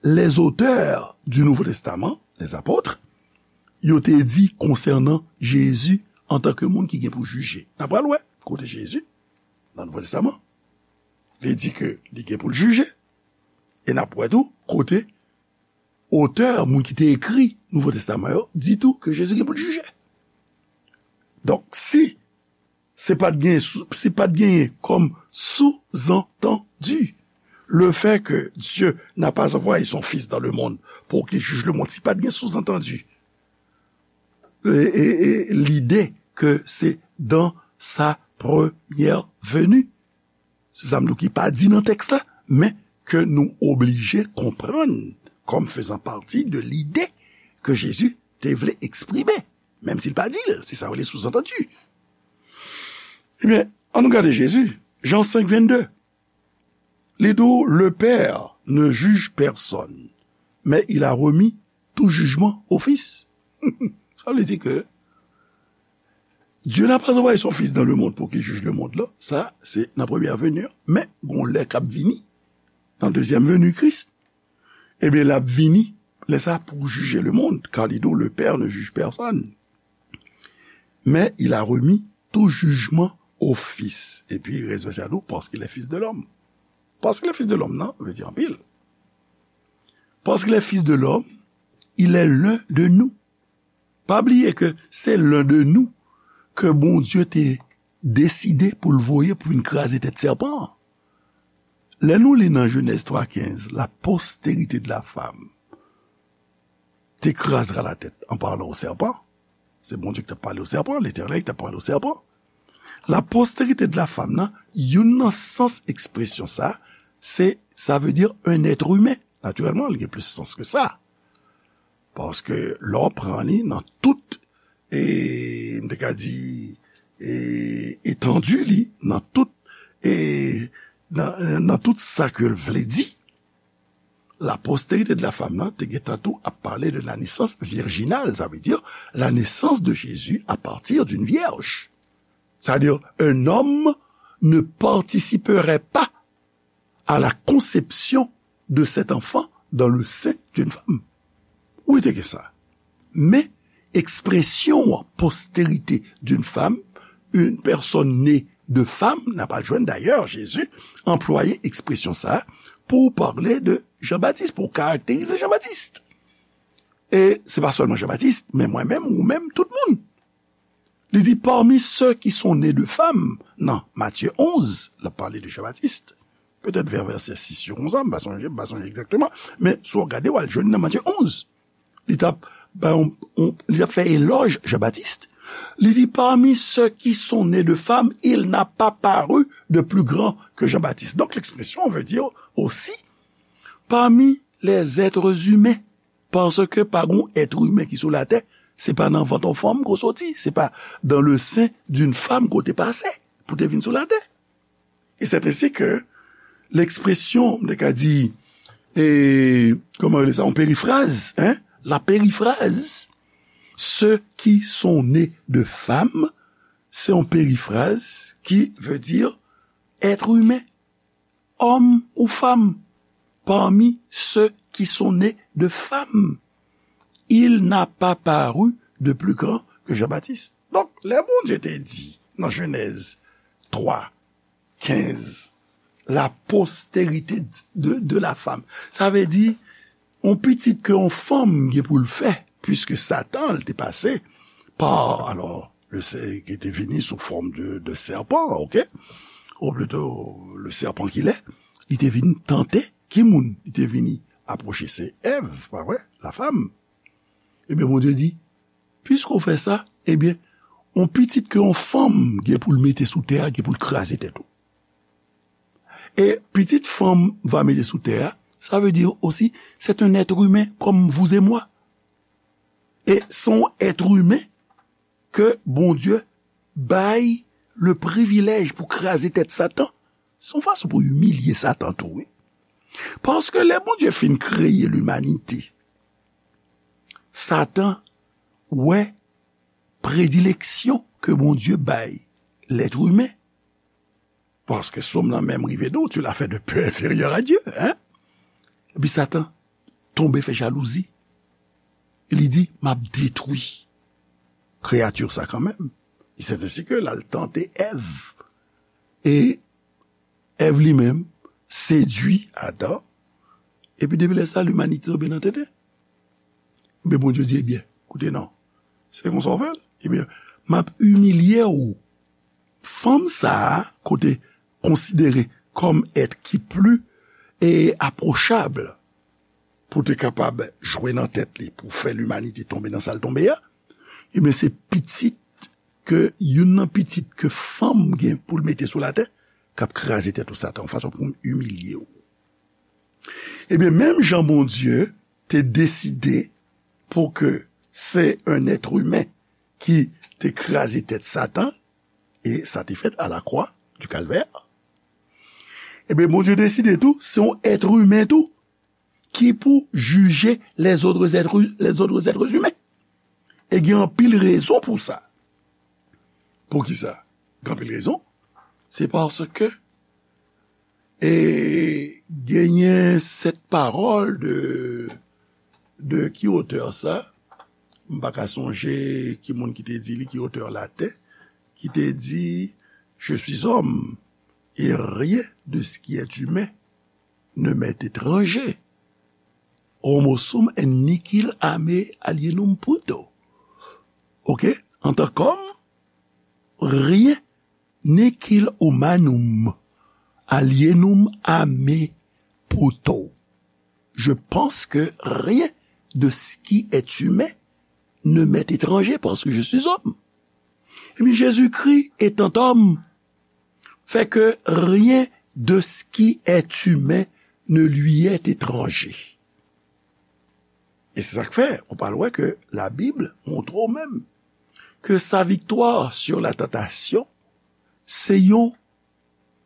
les auteurs du Nouveau Testament, les apôtres, yo te di konsènan Jezi antanke moun ki gen pou jije. N a pral wè kote Jezi, nan Nouvo Testaman, li di ke li gen pou l jije, e n ap wè tou kote otè, moun ki te ekri Nouvo Testaman yo, di tou ke Jezi gen pou l jije. Donk, si se pa t gen, si pa t genyen kòm souzantandi, le fait que Dieu n'a pas envoyé son Fils dans le monde pour qu'il juge le monde, si pa t gen souzantandi, e, e, e, lide ke se dans sa première venue, se sa m di w ki pa di nan tèks la, men ke nou oblije konprann kòm fezan pati de lide ke Jezi te vle eksprime, menm si l pa di l, se sa yo rele souzantandi. Ebyen, ann nou gade Jezi, Jan senk vennde. Li di w, le Père ne juge personne, mais il a remis tout jugement au Fils. Sa vle di ke Dieu n'a pas envoyé son Fils dans le monde pour qu'il juge le monde la. Sa, se nan premyè veni an. Men, gon lè k ap vini, nan dezyèm veni Kris, ebyen, l ap vini, lè sa pou jije lemonn, car li di w, le Père ne juge personne, mais il a remis tout jugement au Fils. Epi, rès vèsè a di w, parce qu'il est fils de l'homme. Parce qu'il est fils de l'homme, nan, vle di anpil. Parce qu'il est fils de l'homme, il est l'un de nous. Pa bliye ke se l'un de nous ke Bondye te deside pou l voye pou vin kraze tèt sèpan an. Lè nou li nan Jenèz twa kenz, la postérité de la femme te krazra la tête en parlant au serpent, se Bondye ki t ap pale au serpent, Letènèl ki t ap pale au serpent. La postérité de la femme nan, youn nan sans ekspresyon sa, se, sa vle di un être humain. Natirèlman, li gen plis sans ke sa. Paske lè w pran li nan tout, e, m te ka di, e, etandi li, nan tout, e, nan, nan tout sa ke l vle di, la postérité de la femme nan te gentan tou ap pale de la naissance virginale, ça veut dire la naissance de Jésus à partir d'une vierge. C'est-à-dire, un homme ne participerait pas à la conception de cet enfant dans le sein d'une femme. Ou te gen sa. Men, ekspresyon an, postérité d'une femme, une personne née de femme, n a pral jwenn, dayè, Jezi anplwaye ekspresyon sa a pou pale de Jan Batis, pou karakterize Jan Batis. E se pa sèlman Jan Batis, men mwen menm, ou menm, tout moun. Li di, parmi ceux qui sont nés de femmes, nan Matye onz, l ap pale de Jan Batis, petèt vè vèsè sis yo konsa, m pa sonje, m pa sonje egzakteman, men si w gade, w al jwenn nan Matye onz. Li t ap, bay yon, yon, li t ap fè elòj Jan Batis. Li di, parmi ceux qui sont nés de femmes, il n'a pas paru de plus grand que Jean-Baptiste. Donc, l'expression veut dire aussi, parmi les êtres humains, paske pa gon èt imen ki sou latè, se pa nan vant yon fanm ke w soti, se pa dans le sein d'une femme ke w te pase pou w te vin sou latè. Et c'est ainsi que l'expression, m te ka di, e, kòman rele sa, yon perifraz, hein? La périphrase, ceux qui sont nés de femmes, se yon perifraz ki vle di èt imen, òm ou fanm, parmi ceux qui sont nés de femmes, il n'a pas paru de plus grand que Jean-Baptiste. Donk, lè Bondye te di nan Jenèz twa, kenz, la postérité de, de la femme. Sa vle di, yon pitit ke yon fanm gen pou l fè, puiske Satan, l te pase pa, alò, le sè-, ki te vini sou fòm de, de sèpan, oke? Ou plito, le sèpan ki lè, li te vin tante ki moun? Li te vini apwoche, se Èv, pa vre? La femme. Ebyen, Bondye di, piske w fè sa, ebyen, yon pitit ke yon fanm gen pou l mete sou tè a, gen pou l kraze tèt ou. E pitit fanm va mete sou tè a, sa vle di osi, c'est un être humain comme vous et moi. E se yon èt imen ke Bondye bay le privilèj pou kraze tèt Satan. Se yon fason pou imilye Satan tou, wi. Paske lè Bondye fin kreye limanite, Satan wè predileksyon ke Bondye bay lèt imen. Paske Sòm nan menm rive di w, tu l'as fait de peu inférieur à Dieu, hein? Epi Satan tonbe fè jalouzi. Li di, m ap detwi kreyati sa kanmenm. E c'est ainsi que l al tante Èv. E Èv li menm sedui Adan. Epi depi lè sa, limanite tonbe nan tenten. Men Bondye di, ebyen, koute non. Se konsa w fè l? Ebyen, m ap imilye w. Fanm sa a, ke w te konsidere kòm èt ki pli, e, apwochab, pou te kapab jwe nan tèt li, pou fè limanite tonbe nan sa l tonbe a, ebyen, se pitit ke, youn nan pitit ke fanm gen pou l mete sou latè, k ap kraze tèt ou Satan, yon fason pou imilye w. Ebyen, menm jan Bondye te deside pou ke se un être humain ki te kraze tèt Satan, e sa te fèt à la croix du Calvaire, ebyen, Bondye deside tou, se yon èt imen tou, ki pou jije les autres êtres, les autres êtres humains. E gen anpil rezon pou sa. Poukisa? Gen anpil rezon. Se paske, e, genyen sèt pawòl de, de ki otè sa? M pa ka sonje ki moun ki te di li, ki otè latè, ki te di, je suis homme, et rien de ce qui est humain ne m'est étranger. Homo sum et nihil a me alienum puto. Oke? Antan k'òm, rien, nihil humanum alienum a me puto. Je pense que rien de ce qui est humain ne m'est étranger parce que je suis homme. Ebyen, Jésus-Christ, étant homme, fait que rien de ce qui est humain ne lui est étranger. E se sa k fè, ou pral wè ke Labib montre w menm ke sa viktwa sur la tantasyon, se yon,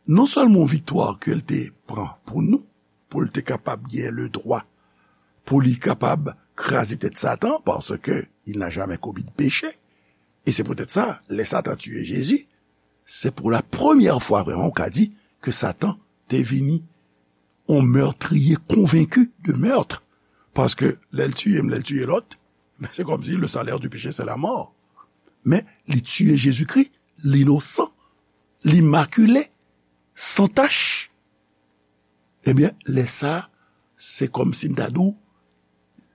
non sèlman yon viktwa ke l te pran pou nou, pou l te kapab gen le dwa, pou li kapab kraze tèt Satan, paske il n'a jamais commis de péché. E se poutèt sa, lè Satan tiye Jezi, se pou la premyè fwa vrèman ou ka di ke Satan te vini yon meurtrier convaincu de meurtre. Paske lè l tiye m, lè l tiye lòt, men se kòmsi le salaire du péché, c'est la mort. Men li tiye Jezikri, linosan, limakile, san tach. Ebyen, lè sa, se kòmsi m ta di w,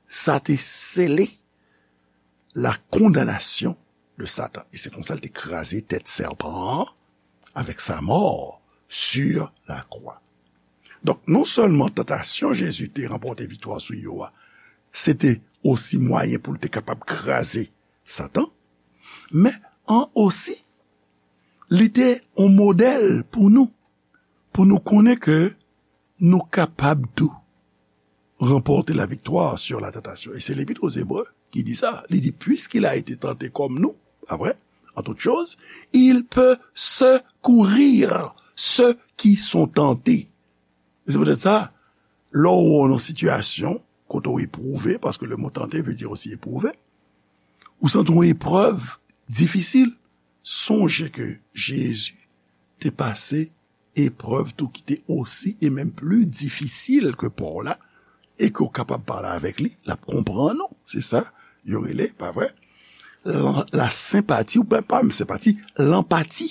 sa te sele la condamnation de Satan. E se konsa l te kraze tèt sèpan an avec sa mort sur la croix. Donk, non sèlman tantasyon Jezi te ranpòte viktwa sou yo a, se te osi mwayen pou l te kapab kraze Satan, men an osi, li te yon modèl pou nou, pou nou konnen ke nou kapab tou remporter la victoire sur la tentation. Et c'est l'Épître aux Hébreux qui dit ça. Il dit, puisqu'il a été tenté comme nous, pas vrai, en toutes choses, il peut secourir ceux qui sont tentés. E se poutèt sa, lè w nan sitiyasyon kote w epwouve, paske le mot tenter veut dire aussi éprouver, ou santi yon eprèv difisil, sonje ke Jezi te pase eprèv tou ki te osi e menm pli difisil ke pa w la, e ke w kapab pale avèk li, l ap konprann ou. Se sa yo rele, pa vre? La, la senpati, ou pa, pa senpati, lanpati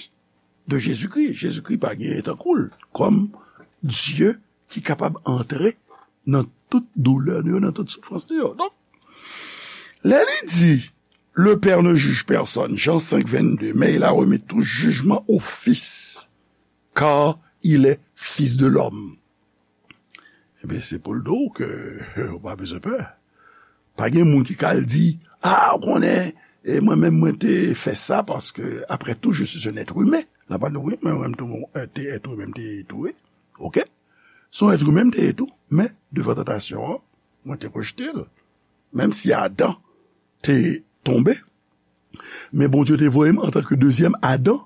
de Jezikri. Jezikri pa gen tankou l kòm Dye ki kapab antre nan tout doulè nou yo, nan tout soufrans nou yo. Donk, lè li di, le Père ne juge personne, Jean cinq, vingt-deux, mais il a remis tout jugement au Fils, car il est Fils de l'homme. Ebyen, se pou l di w ke ou pa bezwen pè. Pa gen moun ki ka al di, a, ou konnen, e mwen menm, mwen te fè sa, paske, après tout, je suis un être humain. L ap di, wi, men mwen menm tou, mwen te être humain, m te tou, wi. Oke? Se yon être humain m te ye tou, men devan tantasyon an, mwen te rejte l. Menm si Adan te tonbe, men Bondye te voye m antanke dezyèm Adan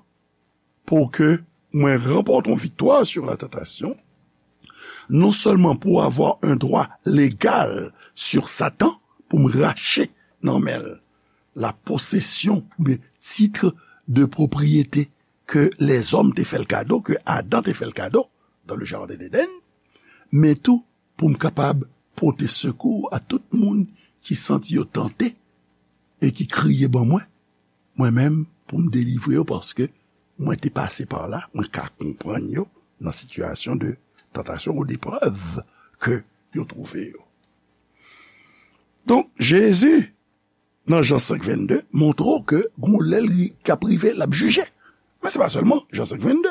pou ke mwen ranpòte yon viktwa sur la tentation, non sèlman pou avoir un droit légal sur Satan, pou m rache nan men l la possession oubyen titre de propriété ke lèzòm te fè l kado, ke Adan te fè l kado dans le jardin d'Éden, men tou pou m kapab pote sekou a tout moun ki santi yo tante e ki kriye ban mwen. Mwen menm, pou m delivre yo, paske mwen te pase pa la, mwen ka konprann yo nan sitiyasyon de tantasyon ou deprèv ke yo twouve yo. Donk, Jezi, nan Jan senk vennde, montre w ke gon lè li k ap rive, l ap jije. Men se pa sèlman Jan senk vennde.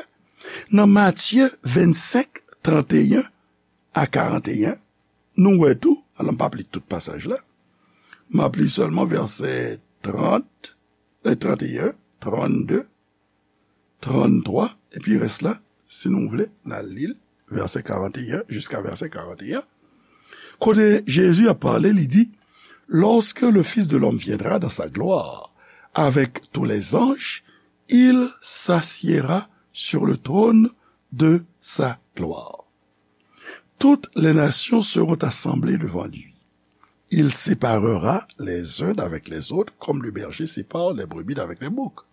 Nan Matye vennsenk, tranteyen a karanteyen, nou wè tou, alò m p ap li tout pasaj la, m ap li sèlman vèsè trant, e, tranteyen, trannde, tranntwa, epi rès la, si nou vle, n al li l, vèsè karanteyen jiska vèsè karanteyen. Kote Jezi ap pale, li di, lorsque le Fils de l'homme viendra dans sa gloire, avec tous les anges, il s'assiera sur le trône de sa gloire. Toutes les nations seront assemblées devant lui. Il séparera les uns d'avec les autres, comme le berger sépare les brebis d'avec les boucs.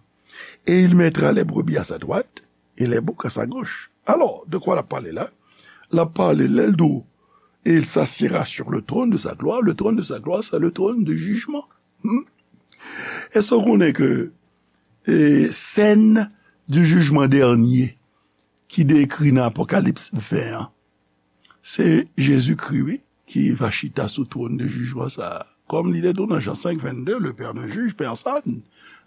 Et il mettra les brebis à sa droite et les boucs à sa gauche. Alò, de kwa l ap pale la? L ap pale lè l di w, et il s'assiera sur le trône de sa gloire. Le trône de sa gloire, c'est le trône de jugement. Hmm? Èske w konnen ke, e, scène du jugement dernier ki dekri nan Apokalips ven an, se Jezikri, wi, ki va chita sou twòn de jijman sa a. Kòm li te di w nan Jan senk vennde, le Père ne juge personne,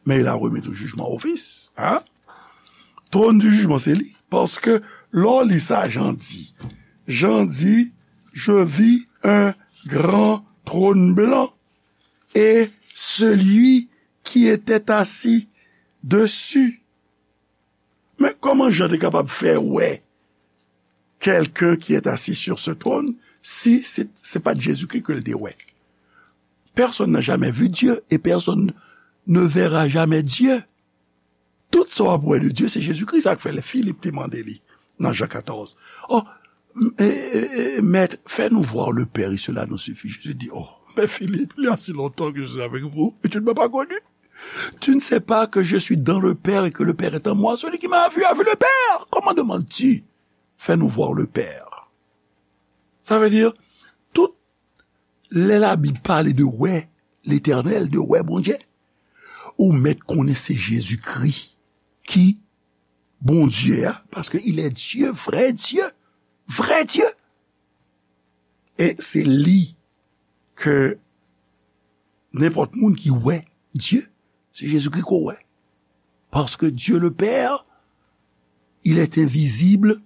mais il a remis tout jugement au Fils. Hein? Trône du jugement, se li. Paske, lè w li sa, Jan di, Jan di, je vis un grand trône blanc, et celui qui était assis dessus. Men kòman Jan te kapab fè wè quelqu'un qui est assis sur ce trône si se, se pa t Jezikri ke l te wè? Personne n'a jamais vu Dieu et personne ne verra jamais Dieu. Tout sa w ap wè de Dye, se Jezikri. Sa k fè lè Filip te mande li nan Jan katòz, oh, m- e- e- e- Maître, fais-nous voir le Père et cela nous suffit. Jésus dit, oh, mais Philippe, il y a si longtemps que je suis avec vous et tu ne m'as pas connu. Tu ne sais pas que je suis dans le Père et que le Père est en moi. Celui qui m'a vu a vu le Père. Comment demandes-tu, fais-nous voir le Père? Sa vle di, tout lè Labib pale de wè Letènèl, de wè Bondye, ou mèt konnen se Jezikri ki Bondye a, paske il est Dieu, vrai Dieu, vrai Dieu. E se li ke nenpòt moun ki wè Dye, se Jezikri ke w wè. Parce que Dieu le Père, il est invisible,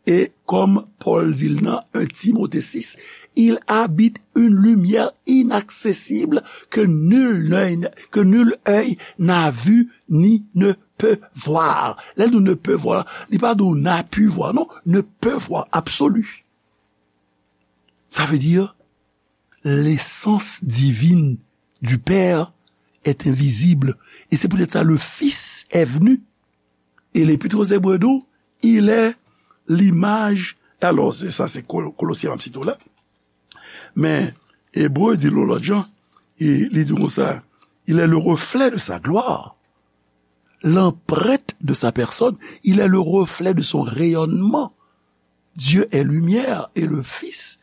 et comme Paul dit nan un Timothée six, il habite une lumière inaccessible que nul œil, que nul œil n'a vu ni ne peut voir. Lè l di ne peut voir, li pa di w n'a pu voir, non, ne peut voir, absolu. Ça veut dire, l'essence divine du Père est invisible. Et c'est peut-être ça, le Fils est venu. Et l'Épître aux Hébreux dit, il est l'image. Alò, se sa, se Kol- Kolosyen m ap site w la. Men, Ebre di l yon lòt jan, e li di konsa, il est le reflet de sa gloire, l'empreinte de sa personne, il est le reflet de son rayonnement. Dieu est lumière et le Fils,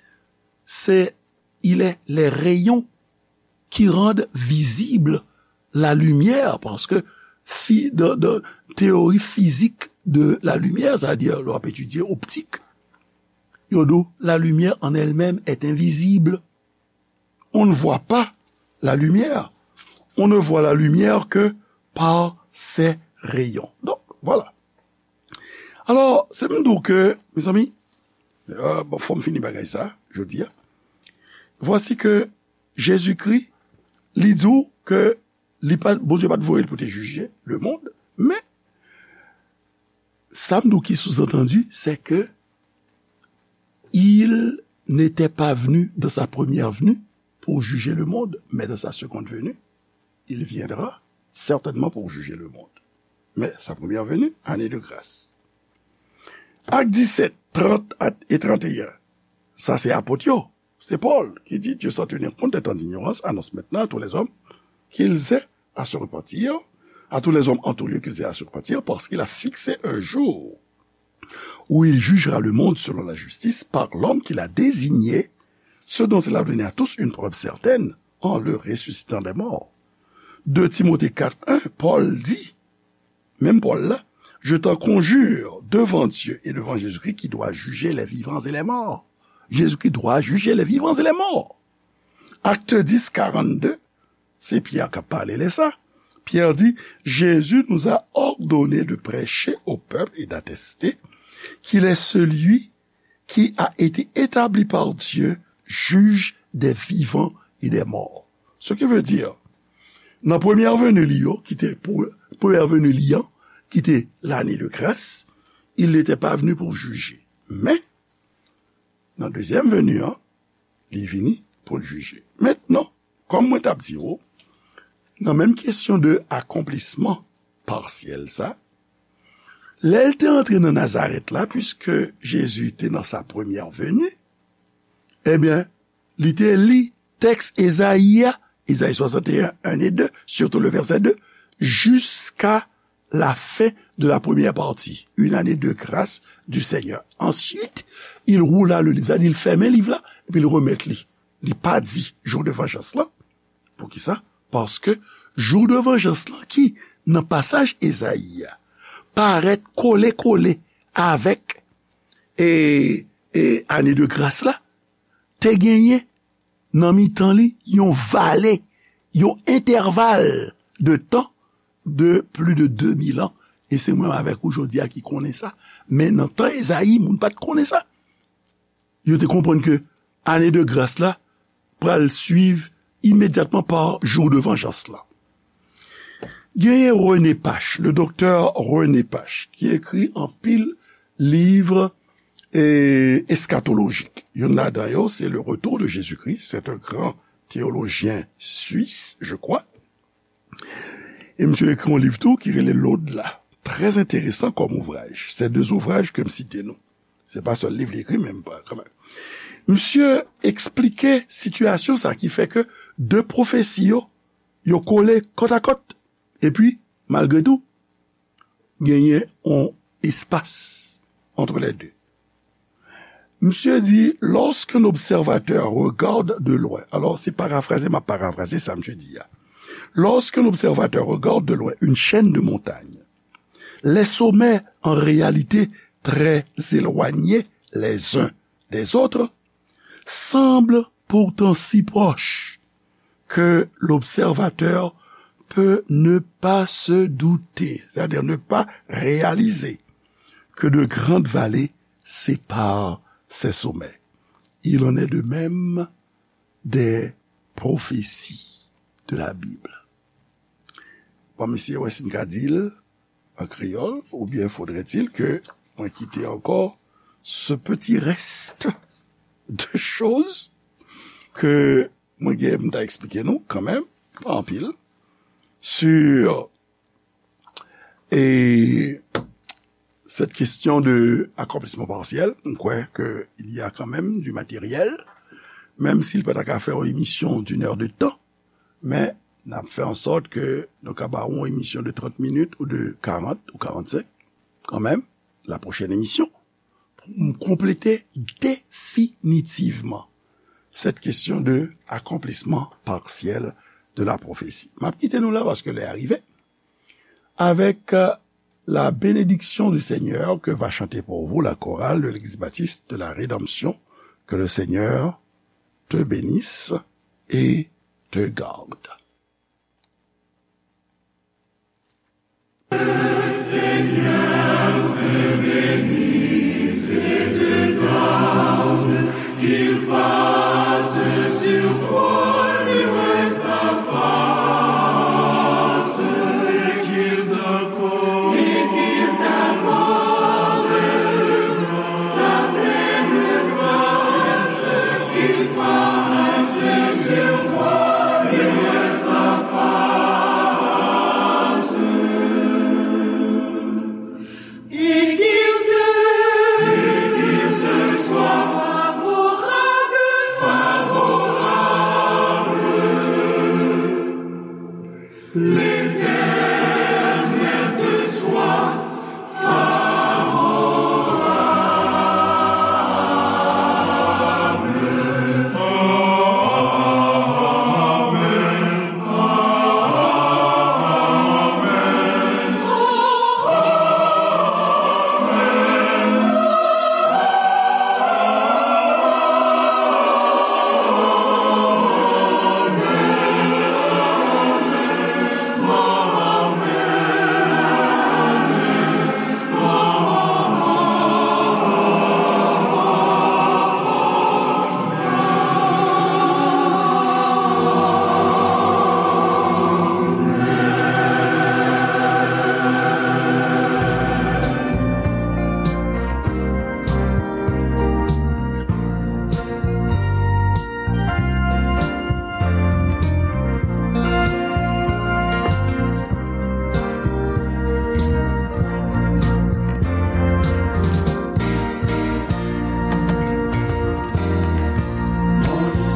c'est, il est les rayons qui rendent visible la lumière, paske fi, dan, dan teyori fizik de la lumière, c'est-à-dire lè w ap etidye optik, yo di w, la lumière en elle-même est invisible. On ne voit pas la lumière. On ne voit la lumière que par ses rayons. Donc, voilà. Alò, se m di w ke, mezanmi, euh, bon, fò m fini bagay sa, jodi a. Voici que Jezikri, li di w ke li pa, Bondye pa t voye l pou te jije le monde, men sa m di w ki sous-entendu, c'est que il n'était pas venu dans sa première venue pour juger le monde, mais dans sa seconde venue, il viendra certainement pour juger le monde. Mais sa première venue, année de grâce. Actes dix-sept, trente et trente et un. Sa se apot yo. Se Pòl ki di, Dieu, sans tenir compte des temps d'ignorance, annonce maintenant à tous les hommes qu'ils aient à se repentir, à tous les hommes en tout lieu qu'ils aient à se repentir, parce qu'il a fixé un jour où il jugera le monde selon la justice par l'homme qu'il a désigné, ce dont il a donné à tous une preuve certaine en le ressuscitant des morts. Deux Timothée quatre un, Pòl di, menm Pòl la, je t'en conjure devant Dieu et devant Jésus-Christ qui doit juger les vivants et les morts. Jésus-Christ doit juger les vivants et les morts. Acte dix, quarante-deux, se Pyè k ap pale lè sa. Pyè di, Jésus nous a ordonné de prêcher au peuple et d'attester qu'il est celui qui a été établi par Dieu juge des vivants et des morts. Ce qui veut dire, nan premyè veni li yo, ki te pou, premyè veni li an, ki te lane de gras, il n'était pas venu pour juger. Men, nan dezyèm veni an, li vini pou l jije. Mentnan, kòm mwen t ap di w, nan menm kesyon de akonplisman pasyèl sa, lè l te antre nan Nazarèt la, puiske Jezi te nan sa premyè veni, ebyen, li te li tèks Ezayi a, Ezayi swasanteyen, en e de, surtout le verset deux, jusqu'à la fin de la première partie, une année de grâce du Seigneur. Ensuite, il roula le livre, sa di l fèmen liv la, epi l remèt li. Li pa di jou de vanjans lan. Poukisa? Paske jou de vanjans lan ki nan pasaj Ezayi a parèt kole kole avèk e, e ane de gras la, te genyen nan mitan li yon vale, yon entèval de tan de plis de de mil an. E se mwen avèk ou jodi a ki konnen sa. Men nan tan Ezayi, moun pa t konnen sa. Yo te konprann ke ane de gras la pral swiv imedyatman pa jou de vanjans lan. Genyen René Pache, le doktè René Pache, ki ekri anpil liv, e, eskatolojik. Youn ladan yo, se Le Retour de Jésus-Christ. C'est un grand théologien suisse, je crois. E misye ekri yon liv tou ki rele L'Au-delà. Très intéressant comme ouvrage. Se de ouvraj ke m site nou. Se pa sèl liv li ekri, men m pa, kanmenm. Misye eksplike sitiyasyon sa ki fè ke de pwofesi yo, yo kole kòtakòt. Epi, malgre tou, genyen yon espas entre les deux. Misye di, lorsqu'un observateur regarde de loin, alors c'est paraphrasé, m'a paraphrasé ça, misye di a. Lorsqu'un observateur regarde de loin une chaîne de montagnes, les sommets, en réalité très éloignés les uns des autres, semblent pourtant si proches que l'observateur peut ne pas se douter, c'est-à-dire ne pas réaliser que de grandes vallées séparent ces sommets. Il en est de même des prophéties de la Bible. Bon, mesye, wè si m ka di l an kreyòl, oubyen faudrait-il que mwen kite ankò ce petit reste de choses que mwen gen m ta eksplike nou kanmenm, pa anpil, sur, e, cette question de accomplissement partiel. M kwè ke il y a quand même du matériel, menm si l pa ta ka fè yon emisyon d'une heure de temps, men n ap fè an sòt ke nou ka ba w yon emisyon de trant minit ou de karant ou karannsenk, kanmenm, la prochaine émission. Pou m konplete definitivman cette question de accomplissement partiel de la prophétie. M ap kite nou la paske lè a rive. Avec, euh, la bénédiction du Seigneur que va chanter pour vous la chorale de l'Église baptiste de la Rédemption. Que le Seigneur te bénisse et te garde.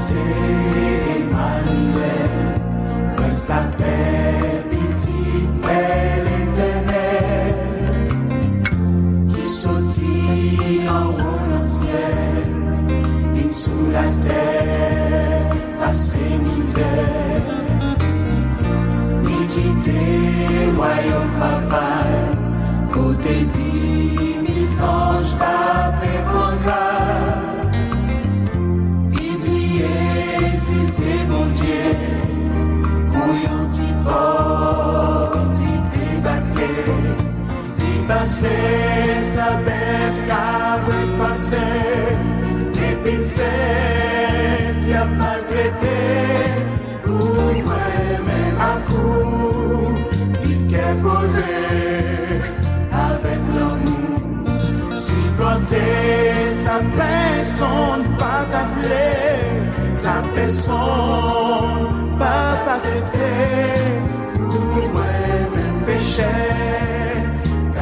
Moïse Emmanuel, prens lapè, pitit pè Letènèl, ki soti anwo nan syèl, vin sou latè, pase mizè. Li kite wayòm Papa l, kote dimiz anj t ap enpòta. Li bliye si l te Bondye, pou yon ti pòv li debake. Li pase sa bèf, kabrit pase, epi l fèt, y ap maltrete. Pou mwen menm ak ou, Kè poze avèk lanmou. Sipòte sa pèsonn pa ta vle, sa pèsonn pa pa aksepte. Pou mwen menm pechè,